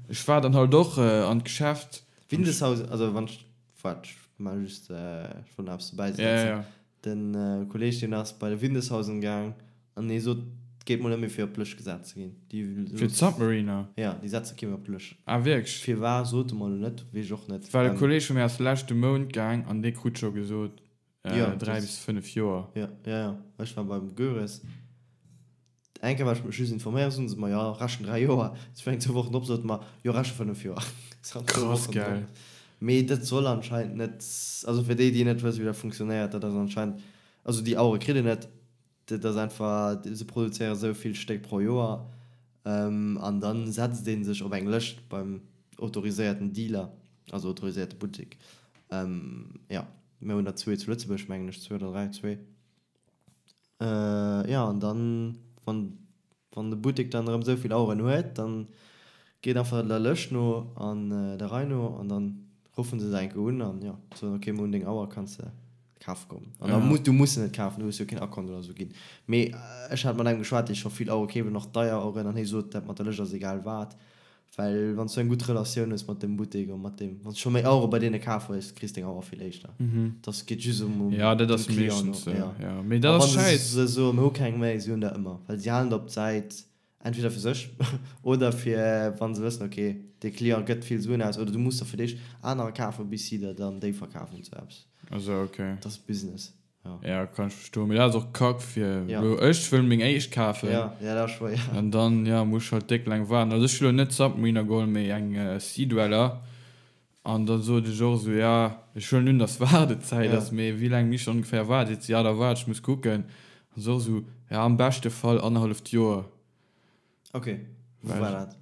Ech war dann halt och an d'Geschäft. Windeshaus, also wann ech, waart, ech maache just, ech wollt nach eppes dobäi setzen. Ja, ja. Den Kolleg deen ass bei de Windeshausen gaang an dee sot et geet mol net méi fir op d'Lëscht gesat ze ginn. Déi Fir d'Submariner? Ja, déi setze kee méi op d'Lëscht. Ah wierklech? Firwar sot e mer elo net, weess ech och net. Well e Kolleg vu mir ass leschte Mount gaang an dee krut scho gesot 3 bis 5 Joer. Jo, jo, jo. Ech war beim Goeres. Eng Kéier war ech mech just informéiert, soten se mer, jo, rechen 3 Joer. Ech war eng zwou Wochen drop, sote mer, jo, reche 5 Joer. Krass, gell? Mee dat soll anscheinend net, also fir déi, déi net wëssen, wéi dat funktionéiert, dat ass anscheinend, also déi Auere kritt een net, dat ass einfach, se produzéiere sou vill Stéck pro Joer an dann setzt ee sech op eng Lëscht beim. autoriséierten Dealer, also autoriséierte Buttek. Jo, mir hunn der zwee zu Lëtzebuerg, mengen ech, zwee oder dräi, zwee. Jo, an dann, wann, wann de Buttek dann erëm esou vill Aueren huet, dann geet einfach der Lëscht no an der Rei no an dann ruffen se se eng Kéier un an, jo, soen, ok, mir hunn deng Auer, kanns de kafe kommen. An da muss, du muss se net kafen, du hues jo keen Akkont oder esou ginn. Mee ech hat mat engem geschwat, dee scho vill Auere keeft an och deier Aueren an hie sot, dat mat der Lëscht ass egal wat, Well wann s du eng gutt Relatioun hues mat dem Buttek a mat deem, wann s du scho méi Auere bei deene kaf hues, kriss deng Auer vill éischter. Dass geet just ëm um Ja, dat dem ass Client meeschtens no, sou, ja. ja. Mee A dat wann ass se schäiss. se soen, mir hu keng méi, si hunn der ëmmer, well si halen der op d'Säit, entweder fir sech oder fir wann se wëssen, ok, dee Client gëtt vill Suen aus oder du muss der fir d'éischt anerer kafen, bis si der dann déi verkafen, sou eppes. Also ok. Dat ass Business. Ja. Ja, kann ech verstoen. Mee dat ass och kack fir ja. lo ech wëll meng éischt kafen. Ja, ja, dat ass schwéier. An dann ja muss ech halt déck laang waarden. Also ech hu lo net Submariner geholl, mee eng äh, Sea Dweller. An dann sot ech och esou, ja, ech huelen un, dass Waardezäit ja. ass, mee wéi laang misst ech ongeféier waarden? Seet se, ja, da waart, ech muss kucken. An se och esou, ja, am beschte Fall annerhalleft Joer. Ok, wou war dat?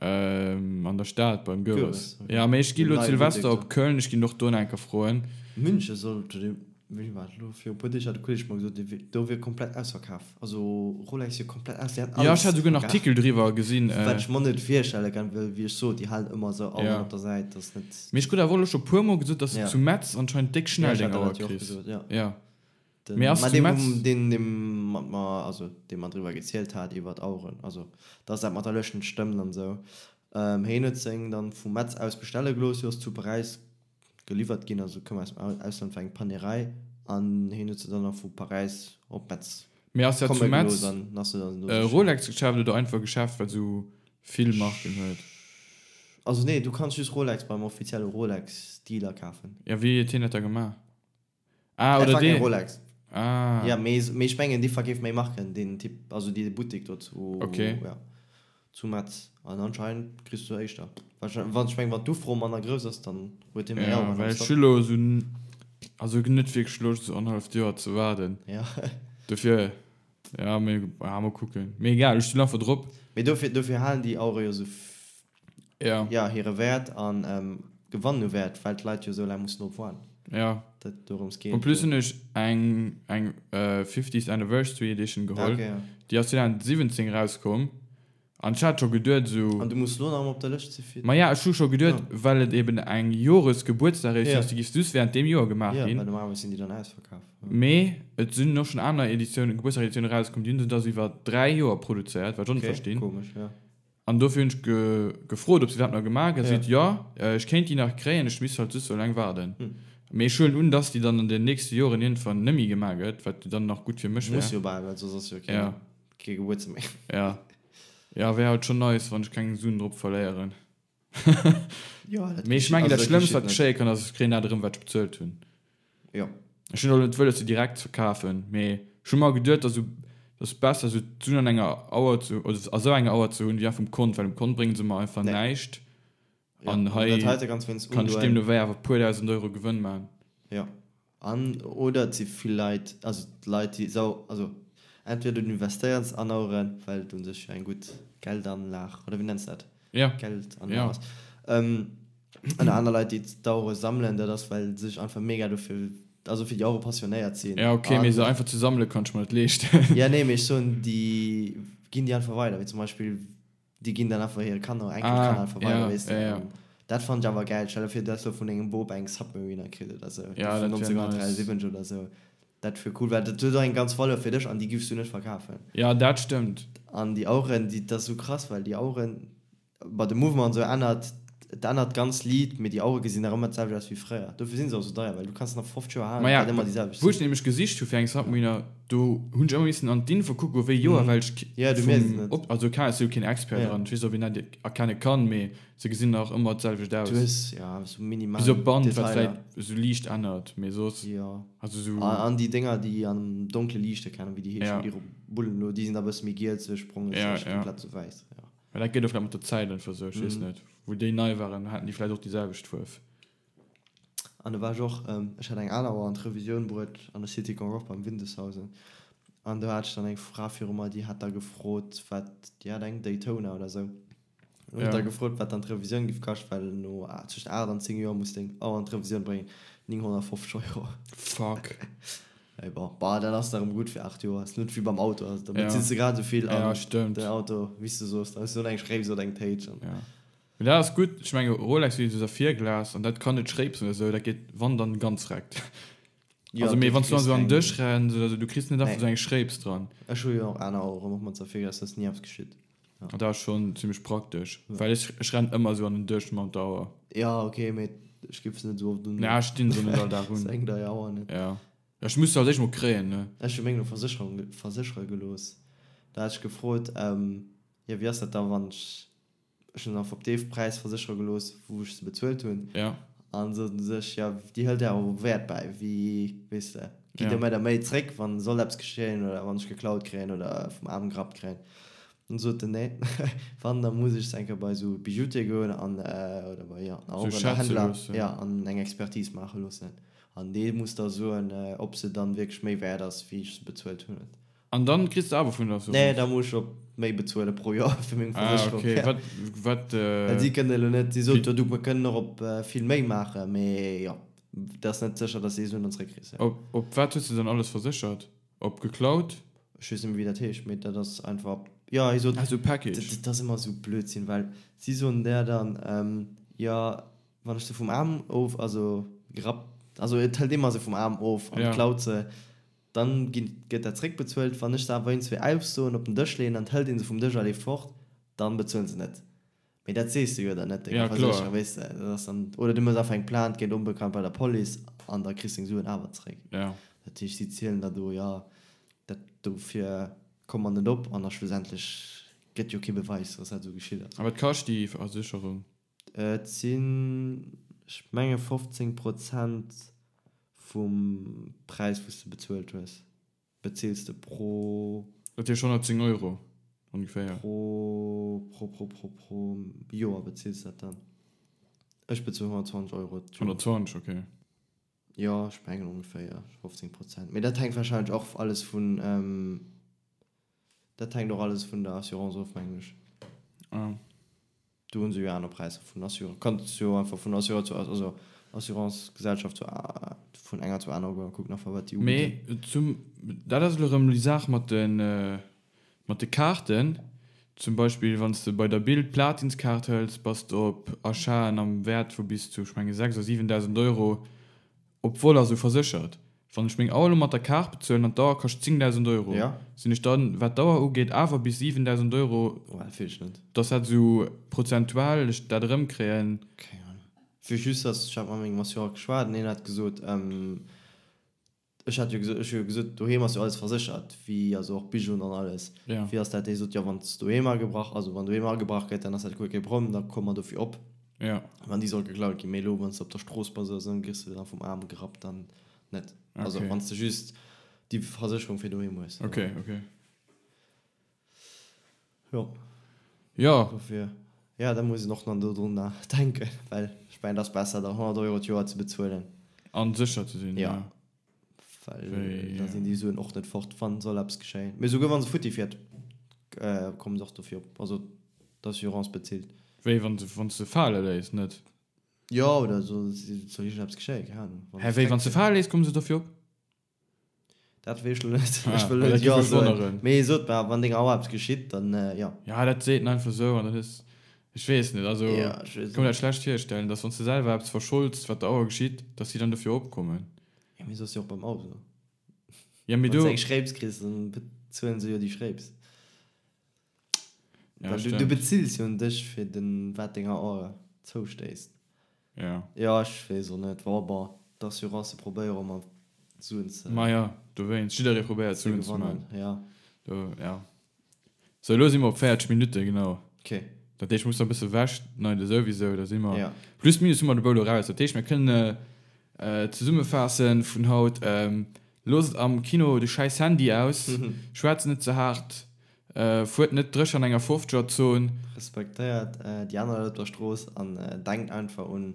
Ähm, an der Stad beim Goeres. Okay. Ja, mee ech gi lo d'Silvester op Köln, ech ginn och do nach eng Kéier froen. München soll, wéi war dat elo, viru e puer Deeg hat e Kolleg mer gesot, do wier komplett ausverkaf. Also Rolex wier komplett aus, déi hätten alles. Ja, ech hat esouguer en Artikel driwwer gesinn. Wat ech mer net virstelle kann, well wéi ech sot, déi halen ëmmer esou Aueren op der Säit, dass net. Mee ech krut awer och elo scho puer mol gesot, dass de zu Metz anscheinend déck schnell deng Auer kriss. Ja. Den, Mee ass ma zu dee, Metz. wou, deen, dee mat mer, also dee mer driwwer gezielt hat iwwer d'Aueren, also dass dat mat der Lëscht net stëmmt an esou, hien huet seng dann vu Metz aus bestelle gelooss, si ass zu Paräis geliwwert ginn, also koum aus dem Ausland, war eng Panerai, an hien huet se dann nach vu Paräis op Metz Mee ass dat zu komme Metz gelooss an ass se dann do e sichen. Rolex-Geschäft oder einfach Geschäft, wat esou vill Marken huet? Also nee, du kanns just Rolex beim offizielle Rolex-Dealer kafen. Ja, wéi huet hien dat da gemaach? Ah, Dat oder war keng dee. Rolex. Ah. Ja, mee, mee ech mengen, dee verkeeft méi Marken, deen Typ, also dee Buttek do zu, Okay. ja, zu Metz. An anscheinend kriss du éischter. Wahrscheinlich, wann, ech mengen, wann d'Ufro manner grouss ass, dann huet hie méi Ja, Aueren am well ech Stock. hu lo esou, also net wierklech Loscht, esou annerhalleft Joer ze waarden. Ja. Dofir, ja, mee, ja, mol kucken. Mee egal, ech stinn einfach drop. Mee dofir, dofir halen déi Auere jo esou Ja. Ja, hire Wäert an gewannen u Wäert, well d'Leit jo esou laang mussen drop waarden. Ja. Dat dorëms geet. En plus hunn ech eng eng 50th Anniversary Edition geholl. Ah, okay, ja. Déi ass 2017 erauskomm an ech hat scho geduet esou. An du muss lo nach emol op der Lëscht si fir. Ma ja, ech hu scho geduet, well et eben eng Joresgebuertsdageditioun ass, déi giff just während deem Joer gemaach ginn. Ja, well normalerweis sinn déi dann ausverkaf. Mee et sinn och schonn aner Editiounen, Gebuertsdageditiounen erauskomm, déi hunn se da sou iwwer 3 Joer produzéiert, wat ech och net verstinn. Okay, komesch, ja. An dofir hunn ech gefrot, ob se dat nach gemaach gëtt. Si seet, jo, ech kéint déi nach kréien, ech misst halt just sou laang waarden. Mee ech huelen un, dass déi dann an den nächste Joren iergendwann net méi gemaach gëtt, wat jo dann nach gutt fir mech wär. Muss jo bal, well soss ass jo kee Gebuertsdag méi. Jo. Jo, wär halt schonn nice, wann ech keng Suen drop verléieren. Mee ech mengen, dat Schlëmmst, wat geschéie kann, ass, ech kréien dat erëm, wat ech bezuelt hunn. Jo. Ech hunn och net wëlles se direkt ze verkafen, mee ech hu mer geduet, dass dass besser esou d'Suen an enger Auer ze oder a sou enger Auer ze hunn wéi einfach um Kont, well um Kont bréngen se mer einfach Nee. näischt Ja, an an hei dat heite kanns wéinst kann ech undoen. deemno wéi awer e puer dausend Euro Gewënn man. Jo. An oder et si vill Leit, also d'Leit déi sau, also entweder du investéiers an Aueren, well et un sech jo eng gutt Geldanlag, oder wéi nenns de dat? Ja. Geldanlag Ja. ass. An aner Leit, déi d'Auere sammelen, dat ass, well se sech einfach mega dofir, also fir déi Auere passionéiert sinn. Ja, okay, mee se einfach ze sammele kann ech mer net leeschten. Ja, nee, mee ech soen, déi ginn déi einfach weider, wéi zum Beispill, déi ginn dann einfach hire Kanner, Enkelkanner einfach weider, weess de. Ah, ja, ja. Dat fannen ech awer gäil. Stell der vir, du häss lo vun dengem Bop eng Submariner kritt oder sou, Ja, déi vun dat wär nice. 1973 oder sou. Dat wier cool, well dat huet och eng ganz Valeur fir dech an déi giffs du net verkafen. Ja, dat stëmmt. An déi Aueren, déi, dat ass sou krass, well déi Aueren, Bei de Mouvement an esou ännert, et ännert d'ganz Lidd, mee déi Auere gesinn nach ëmmer d'selwecht aus wéi fréier. Dofir sinn se och esou deier, well du kanns se nach 50 Joer halen, et Maja, wäert ëmmer déi selwecht wou ech sinn. nämlech gesicht hu fir eng Submariner, do hunn ech ëmmer missen an d'Info kucke wéi Joer, well ech Ja, du mierks et vum net. Op, also keng, ech si jo keen Expert Ja. dran, ech weess och wéi een dat erkenne kann, mee se gesinn nach ëmmer d'selwecht Du aus. hues, ja, esou minimal Bis op d'Band, wat Detailer. vläit esou liicht ännert, mee soss, Jo. also esou. An, an déi Dénger, déi am Donkle liichte kennen, wéi déi heeschen, Ja. déi Bullen elo, déi sinn da bësse méi gielzeg, brongeg, Ja, sech ja. komplett esou wäiss, jo. Mä dat geet och vläicht mat der Zäit einfach esou, ech weess net. Wou déi nei waren, haten déi vläicht och déi selwecht Fuerf. An do war ech och, ech hat eng aner Auer an d'Revisioun bruet an der City Concorde beim Windeshausen. An do hat ech dann eng Fra viru mer, déi hat da gefrot, wat, déi hat eng Daytona oder esou. Hunn ech da gefrot, wat dann d'Revisioun giff kaschten, well no tëscht 8 an 10 Joer muss deng Auer an d'Revisioun bréngen, 950 Euro. Fuck. Mee bon, bah, dat ass da rëm gutt fir 8 Joer, ass net wéi beim Auto, also da bezills de grad esou vill an den Auto, wéi s du soos, da hues du eng Schréips oder eng Téitsch an. Ja. Mee dat ass gutt, ech menge Rolex huet jo esou Saphirglas an dat kann net schréipsen oder esou, dat geet wann dann ganz reckt. Ja, Also mee du wann s du kriss an esou an den keng. Dësch renns oder esou, du kriss net einfach Nee. esou eng Schréips dran. Ech hu jo och aner Aueren, och mat Saphirglas, da ass ni eppes geschitt. Ja. Dat ass schonn zimmlech praktesch, well ech ech rennen ëmmer esou an den Dësch mam der Auer. Ja ok, mee ech giff se net esou oft un. Ja, ech stinn se net all Dag un. Se eng dei Auer net. Ja, ech muss se als éischt mol kréien, ne. Ech hu meng lo Versécherung verséchere gelooss. Da hat ech gefrot, jo wéi ass dat da wann ech Ech hunn se einfach op dee Präis verséchere gelooss, wou ech se bezuelt hunn. Ja. An soten sech, jo, déi hëlt awer Wäert bäi, wéi, weess de, gitt Ja. der mir da méi zréck, wann soll eppes geschéien oder wann ech geklaut kréien oder vum Aarm gerappt kréien. An sot en, nee, wann, da muss ech se eng Kéier bei esou Bijoutier goen an, oder bei, jo, Sou en schätze Auerenhändler, loossen. ja, an eng Expertise maache loossen. An dee muss da soen, ob se dann wierklech méi wäert ass, wéi ech se bezuelt hunn. An dann kriss de awer vun der Assurance? Nee, da muss ech op méi bezuele pro Joer fir meng Versécherung. Ah, okay. Wat, wat. Well si kënnen elo net, si sot jo, du, mer kënnen och op vill méi maachen, mee jo, et ass net sécher, dass de déi Suen dann zréckkriss. Op, op wat hues de dann alles verséchert? Op geklaut? Ech weess net méi, wéi dat heescht, mee dat ass einfach op, jo, hie sot. Ah, sou Package. Dat ass ëmmer esou Blödsinn, well si soen der dann, jo, wann ech se vum Aarm of, also gerappt, also et hëlt ee mer se vum Aarm of an klaut se. Dann ginn, gëtt dat zréckbezuelt. Wann ech se awer iergendzwéi aussoen, op den Dësch leeën an et hëlt een se vum Dësch a leeft fort, dann bezuelen se net. Mee dat sees de jo dann net denger Ja, kloer. Versécherung, weess de. Dat ass dann, oder du méchs einfach eng Plainte géint Onbekannt bei der Police an da kriss deng Suen awer zréck. Ja. Dat heescht, si zielen der do, jo, dat dofir komme mer net op an da schlussendlech gëtt jo kee Beweis, dass dat esou geschitt ass. A wat kascht déi Versécherung? Et sinn, ech menge 15 Prozent vum Präis wou s de bezuelt hues, bezils de pro. Dat heescht 110 Euro ongeféier. Pro, pro, pro, pro, pro Joer bezils dat dann. Ech bezuelen 120 Euro d'Joer. 120, okay. Jo, ech mengen ongeféier 15 Prozent. Mee dat hänkt warscheinlech och alles vun, dat hänkt och alles vun der Assurance of, mengen ech. Ah. Do hunn se jo aner Präisser vun Assureur. Kanns jo einfach vun Assureur zu, also Assurancegesellschaft zu, vun enger zur anerer goen a kucken einfach wat déi ubidden. Mee zum, dat ass elo erëm déi Saach mat de, mat de Kaarten. Zum Beispill wann s de bei der Bild d'Platinskaart hëls, bass de op Achaten am Wäert vu bis zu, ech menge 6 oder 7.000 Euro Op Vol ass esou verséchert. Wann ech meng Auer elo mat der Kaart bezuelen an d'Auer kascht 10.000 Euro, Ja. sinn ech dann, wat d'Auer ugeet, awer bis 7.000 Euro, Oh, dat weess ech net. dass dat esou prozentual ech dat erëmkréien. Keng Ahnung. Ech weess just, dass, ech hat mat mengem Assureur geschwat an hien hat gesot, ech hat jo gesot, ech hu jo gesot, doheem ass jo alles verséchert, wéi, also och Bijouen an alles. Ja. Wéi ass dat? Hie sot, jo, wann s doheem agebrach, also wann doheem agebrach gëtt, dann ass dat guer kee Problem, da komme mer dofir op. Ja. Wann déi soll geklaut ginn, mee elo wann s de op der Strooss bass oder sou, dann gëss de dann vum Aarm gerappt, dann net. Also Okay. wann s de just déi Versécherung fir doheem hues. Okay, okay. Jo. Jo. Dofir, ja, da muss een och nach dodrun denken, well ech mengen, et ass besser da 100 Euro d'Joer ze bezuelen. An sécher ze sinn, Ja. ja. Well Wéi, da sinn déi Suen och net fort, wann soll eppes geschéien. Mee souguer wann se futti fiert, kommen se och dofir op. Also d'Assurance bezilt. Wéi wann se, wann s de fale léiss, net? Jo, oder soll, soll iergendeppes geschéien, keng Ahnung. Wann Hä, wéi wann s de fale léiss, komme se dofir op? Dat weess ech lo net. Ah, Ech wëll well net dat jo géif mech soen. wonneren. Mee sot mer, wann denger Auer eppes geschitt, dann jo. Ja, dat seet en einfach esou an dat ass, ech weess net, also Ja, ech weess kann och mir dat schlecht virstellen, dass wann s de selwer eppes verscholds, wat der Auer geschitt, dass si dann dofir opkommen. Ja, mee soss jo och beim Auto. Ja, mee Wann s do. de eng Schréips kriss, dann bezuelen se jo déi Schréips. Ja, Well du, du stimmt. bezills jo un dech fir den, wat denger Auer zoustéisst. Ja. Ja, ech weess och net. Bon, bon, d'Assurance probéiere mat Suen ze. Ma ja, dowéinst. Jidderee probéiert ze Suen ze gewannen, man. ja. Do, ja. Sou, elo si mer op 40 Minutte, genau. Ok. Dat heescht, ech muss nach e bësse wechschneide souwisou, da si mer. Ja. Plus minus hu mer de Boulot raus. Dat heescht, mir kënnen zesummefaasse vun haut, Loosst am Kino de schäiss Handy aus, schwätzt net ze haart, fuert net dréch an enger 50er Zon. Respektéiert déi aner Leit op der Strooss an denkt einfach un,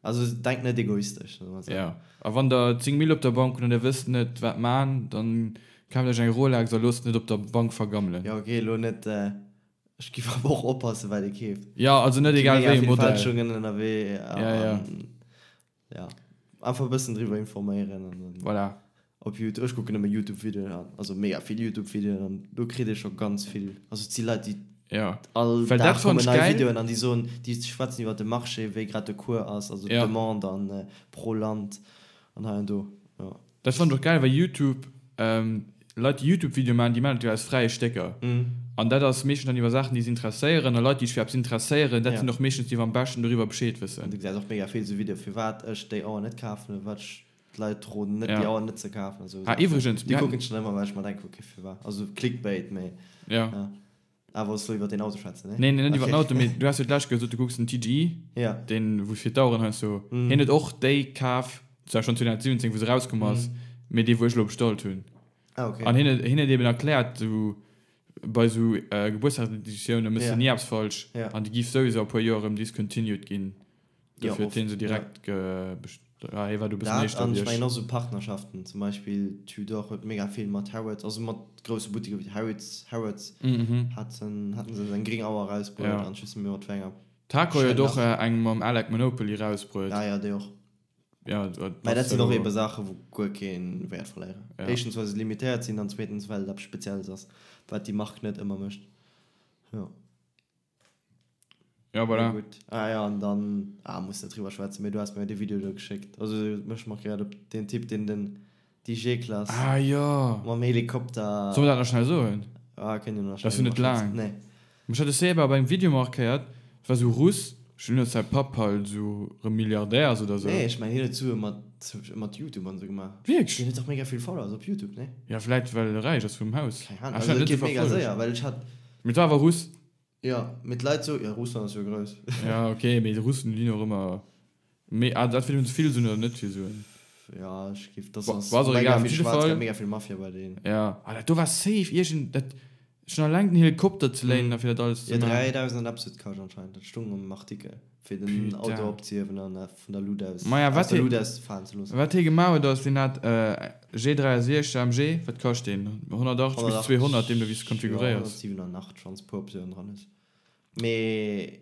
also denkt net egoistesch, soe mer esou. Jo, a wann der 10 Mille op der Bank hutt an der wësst net wat man, dann kaaft iech eng Rolex a loosst net op der Bank vergammelen. Jo, ok, elo net. Ech giff awer och oppassen wat ee keeft. Jo, also net egal wéi e Modell. Fälschungen ënnerwee. Ja, ja. Ja, einfach e bëssen driwwer informéieren an dann. Voilà. Op Youtube, ech kucken ëmmer Youtube Videoen an, also mega vill Youtube Videoen an do kritt ee scho ganz vill, also et si Leit déi ja. all Well Dag dat fand kommen ech nei geil. Videoen an déi soen, déi schwätzen iwwer de Marché, wéi grad de Cours ass, also Ja. d'Demande an pro Land an hei an do, jo. Dat fand ech och geil, well Youtube, Leit déi Youtube Videoe maachen, déi maachen dat jo aus fräie Stécker an dat ass meeschtens dann iwwer Saachen déi se interesséieren a Leit déi sech fir eppes interesséieren, dat sinn och meeschtens déi wou am beschten doriwwer Bescheed wëssen. An du gesäis och mega vill esou Videoe firwat ech déi Auer net kafen oder wat ech d'Leit roden net déi Auer net ze kafen a sou Ah iwwregens, Déi kucken ech dann ëmmer well ech mer denken ok firwat, also Clickbait mee ja. Ah, wollts du iwwer deen Auto schwätzen, nee? Nee, nee, net iwwer den Auto, mee du has jo d'lescht gesot, du kucks den TGI, Ja. deen, wou fir d'Aueren heiansdo, hien huet och déi kaf, zwar schonn 2017, wou se erauskomm ass, mee déi, wou ech elo bestallt hunn. Ah, okay. An hien huet, hien huet eben erkläert, sou bei sou Gebuertsdagseditioune méchs du Ja. ni eppes falsch Ja. an déi giff souwisou a puer Joer erëm discontinued ginn. Jo, Dofir huet oft, hien se ja. direkt ge, best, ah, hie war do e bëssen Dat éischter an wéi ech mengen ech. och sou Partnerschaften, zum Beispill Tudor huet mega vill mat Harrods, also mat grousse Buttiker wéi Harrods, Harrods haten, haten se eng gréng Auer erausbruet Ja. an ech weess net méi mat wéi enger. Tag Heuer huet och Schnell nach. eng mam Alec Monopoly erausbruet. Ah ja, déi och. Ja, dat Mä dat ass sinn och elo. ebe Saachen, wou guer kee Wäert verléieren. Ja. Éischtens well se limitéiert sinn an zweetens well et eppes Spezielles ass, wat déi Mark net ëmmer mécht. Jo. Ja, voilà. Mee gutt. Ah ja, an dann, ah, muss net driwwer schwätzen, mee du has mir jo dee Video do geschéckt. Also mech markéiert op deen Typ, deen den, déi G-Klass Ah jo. mam Helikopter. Solle mer dat nach schnell soen? Ah, kënnt jo nach Dat ass schnell jo net driwwer schwätzen. laang. Nee. Mech hat de Seba op engem Video markéiert, et war sou Russ, ech hunn net säi Papp halt sou rëm Milliardär ass oder sou. Nee, ech mengen hien huet Sue mat mat Youtube an sou gemaach. Wierklech? Hien huet dach mega vill Followers op Youtube, nee? Ja, vläit well e räich ass vum Haus. Keng Ahnung, Ah, ech also hat et net sou geet mega verfollegt. séier, well ech hat. Mee et war awer Russ. Jo, mee d'Leit soen, jo Russland ass jo grouss. Ja ok, mee de Russen déi hunn och ëmmer méi, ah entweder hunn se vill Suen oder net vill Suen. Ja ech giff, dass Wa ass ass och mega egal, op vill jidde schwaarz, Fall. mega vill Mafia bei deenen. Ja, ah dat do war safe iergend, dat schon alleng den Helikopter ze léinen a fir dat alles Jo ze maachen. 3000 an eppes huet kascht anscheinend, dat stung am Artikel, fir den Auto Putain. opzehiewen an vun der Luut aus, Maja aus wat der hie Luut aus falen ze loossen. wat hie gemaach huet ass, deen hat G63 AMG, wat kascht deen? 180 bis 200, deemno wéi s de 180, jo konfiguréiers. 187 wann s puer Optiounen dran hues. Mee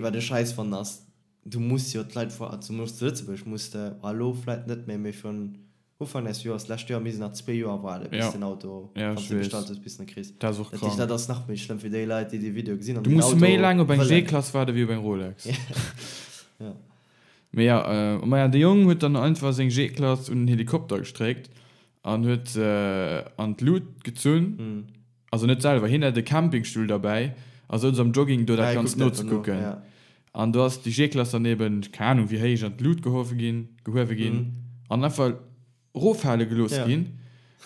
wat ech scheiss fannen ass, du muss jo d'Leit vor, zumools zu Lëtzebuerg muss de, elo vläit net méi, mee virun Ufank des Joers, d'lescht Joer misst een nach zwee Joer waarden, bis Ja. den Auto, Ja, wann ech s de weess. bestallt hues, bis de en kriss. Dat ass och Dat heescht, krank. dat ass nach méi schlëmm fir déi Leit, déi dee Video gesinn an Du den muss Auto méi laang op eng wëllen. G-Klass waarde wéi op eng Rolex. Ja. Mee ja, äh, maja, de Jong huet dann einfach seng G-Klass un den Helikopter gestréckt an huet se an d'Lut gezunn. Mhm. Also net selwer, hien hat e Campingstull derbäi a souz am Jogging do Ah, dat hie Ganzt kuckt einfach no, nozekucken. ja. An do ass déi G-Klass dann eben, keng Ahnung wéi héich, an d'Lut gehuewe ginn, gehuewe ginn Mhm. an einfach roffale gelooss Ja. ginn.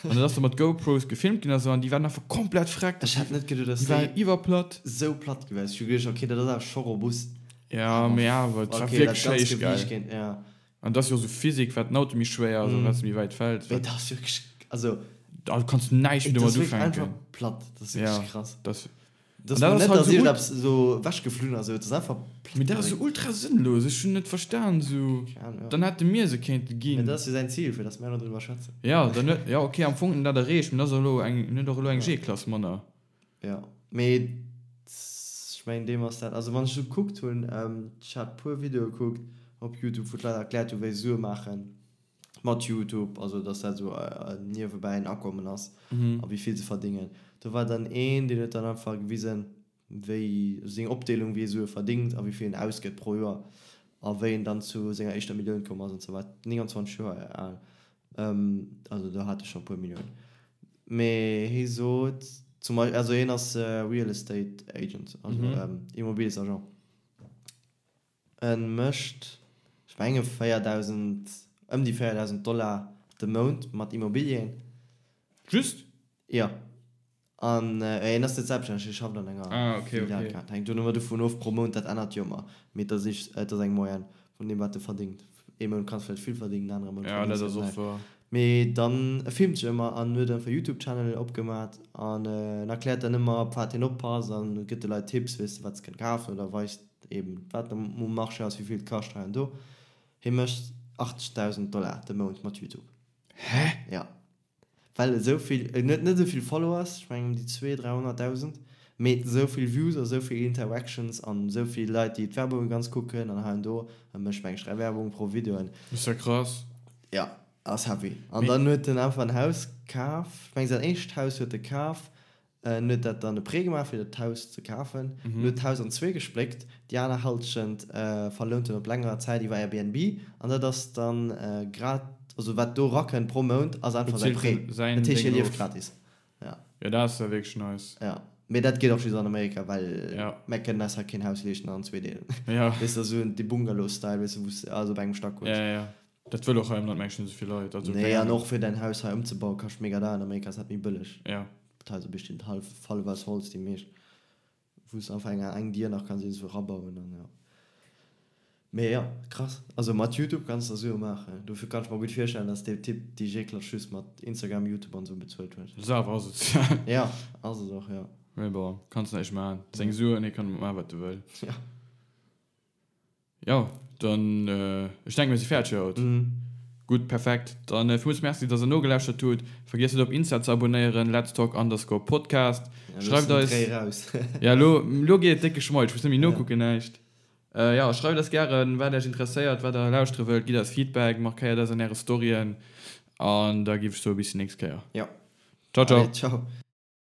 An dat ass da mat GoPros gefilmt ginn a sou an déi waren einfach komplett vreckt. Ech hätt net geduet, dass Déi waren déi iwwerplatt. sou platt gewiescht. Ech hu geduecht, okay, dat ass awer scho robust. Ja, Awer mee awer, et war okay, dat wierklech ganzt héich, gell. Gewiicht géint, ja. An dat ass jo och sou Physik, wat den Auto méi schwéier ass an wat se méi wäit fält. Mee dat ass wierklech, also. Da kanns du näischt méi Dat domat ass wierklech ufänken. einfach platt. Dat ass wierklech Ja, krass. dat. Dat An dat ass ass net, halt dass sou iergendeppes esou ewechgeflunn ass, et ass einfach platt Mee dat ass sou gedréckt. ultra sënnlos. Ech hunn net verstan, sou. Keng Ahnung, ja. Dann hätte mir se kéinte Mee ginn. dat ass jo säin Zil, fir dass mär elo driwwer schwätzen. Ja, dann huet, ja okay, am Fong huet en dat erreecht, mee dat ass elo eng, en huet och elo eng Ja. G-Klass manner. Ja, mee ech mengen deem ass dat, also wann ech esou gekuckt hunn, ech hat puer Videoe gekuckt op Youtube, wou d'Leit erkläert hu wéi se Sue maachen mat Youtube, also dass dat esou niewebäi en Akommen ass a wéi vill se verdéngen. Do war dann een, deen huet dann einfach gewisen, wéi seng Opdeelung, wéi e Sue verdéngt a wéi vill en ausgëtt pro Joer a wéi en dann zu senger éischter Millioun komm ass an sou war 29 Joer al, also do hat e scho e puer Milliounen. Mee hie sot zum Beispill, also hien ass Real Estate Agent, also Immobiliesagent. En mécht, ech menge 4.000, ëm déi 4.000 Dollar de Mount mat Immobilien. Just? Jo. An hien ass net selbststänneg, hie schafft an enger Ah, okay, Filial. okay. Dat hänkt jo ëmmer dovun of, pro Mount, dat ännert jo ëmmer. Mee et ass et ass eng Moyenne vun deem, wat e verdéngt. Ee Mount kanns vläicht vill verdéngen, en anere Mount Ja, dat verdéngs ass de och näischt. wahr. Mee dann, e filmt sech ëmmer an huet einfach e Youtube-Channel opgemat an en erkläert dann ëmmer, op wat hien oppasst an gëtt de Leit Tipps, weess de, wat se kënnen kafen oder weist eben, wat um Marché ass, wéi vill et kascht hei an do. Hie mécht 80.000 Dollar de Mount mat Youtube. Hä? Ja. Well esou vill, en huet net esou vill Followers, ech mengen ëm déi zwee, 300.000, Mee esou vill Views a sou vill Interactions an esou vill Leit déi d'Werbunge ganz kucken an hei an do, e mécht meng ech 3 Werbunge pro Videoen. Ass ja krass. Ja, ass heavy. An dann huet en einfach en Haus kaf, ech meng säin éischt Haus huet e kaf, en huet dat dann e Prêt gemaach fir dat Haus ze kafen, en huet d'Haus an zwee gespléckt, déi aner Halschent verlount en op längerer Zäit iwwer Airbnb an dat ass dann grad, also wat do rakënnt pro Mount ass einfach säi Prêt, dat heescht hie lieft gratis. Ja. Jo, dat ass ja wierklech nice. Ja. Mee dat geet och just an Amerika, well ja. mär kënnen eis hei keen Haus leeschten an zwee deelen. Ja. Weess de, esou de Bungalow-Style, weess de, wou s de alles op engem Stack hues. Ja, ja, ja. Dat wëll och hei am Land mengen ech net esou vill Leit. Also, nee, an och fir däin Haus hei ëmzebauen, kascht mega deier. An Amerika ass dat méi bëlleg. Ja. D'Haiser bestinn hallef, hallef aus Holz, déi meescht. Wou s de einfach eng, eng Dier nach kanns iergendwou erabauen an ja. Mee jo, krass. Also mat Youtube kanns de Sue maachen. Dofir kann ech mer gutt virstellen, dass dee Typ déi Jeeklatsch just mat Instagram, Youtube an esou bezuelt huet. Dat ass awer asozial. Ja, ass et och, jo. Mee bon, kanns näischt maachen. Seng Suen, hie kann domat maachen, wat e wëll. Ja. Jo, dann, ech denken, mir si fäerdeg fir haut. Gutt, perfekt. Dann villmools Merci, dass der nogelauschtert hutt. Vergiesst net op Insta ze abonéieren, letstalk underscore podcast. Schreift eis. Ja, elo, elo geet et décke Schmoll. Ech muss net méi nokucken, näischt. Jo, schreift eis gären, wat Iech interesséiert, wat der lauschtere wëllt. Gitt eis Feedback, markéiert eis an äre Storyen. An da géif ech soen, bis déi nächst Kéier. Jo. Ciao, ciao. Allez, ciao.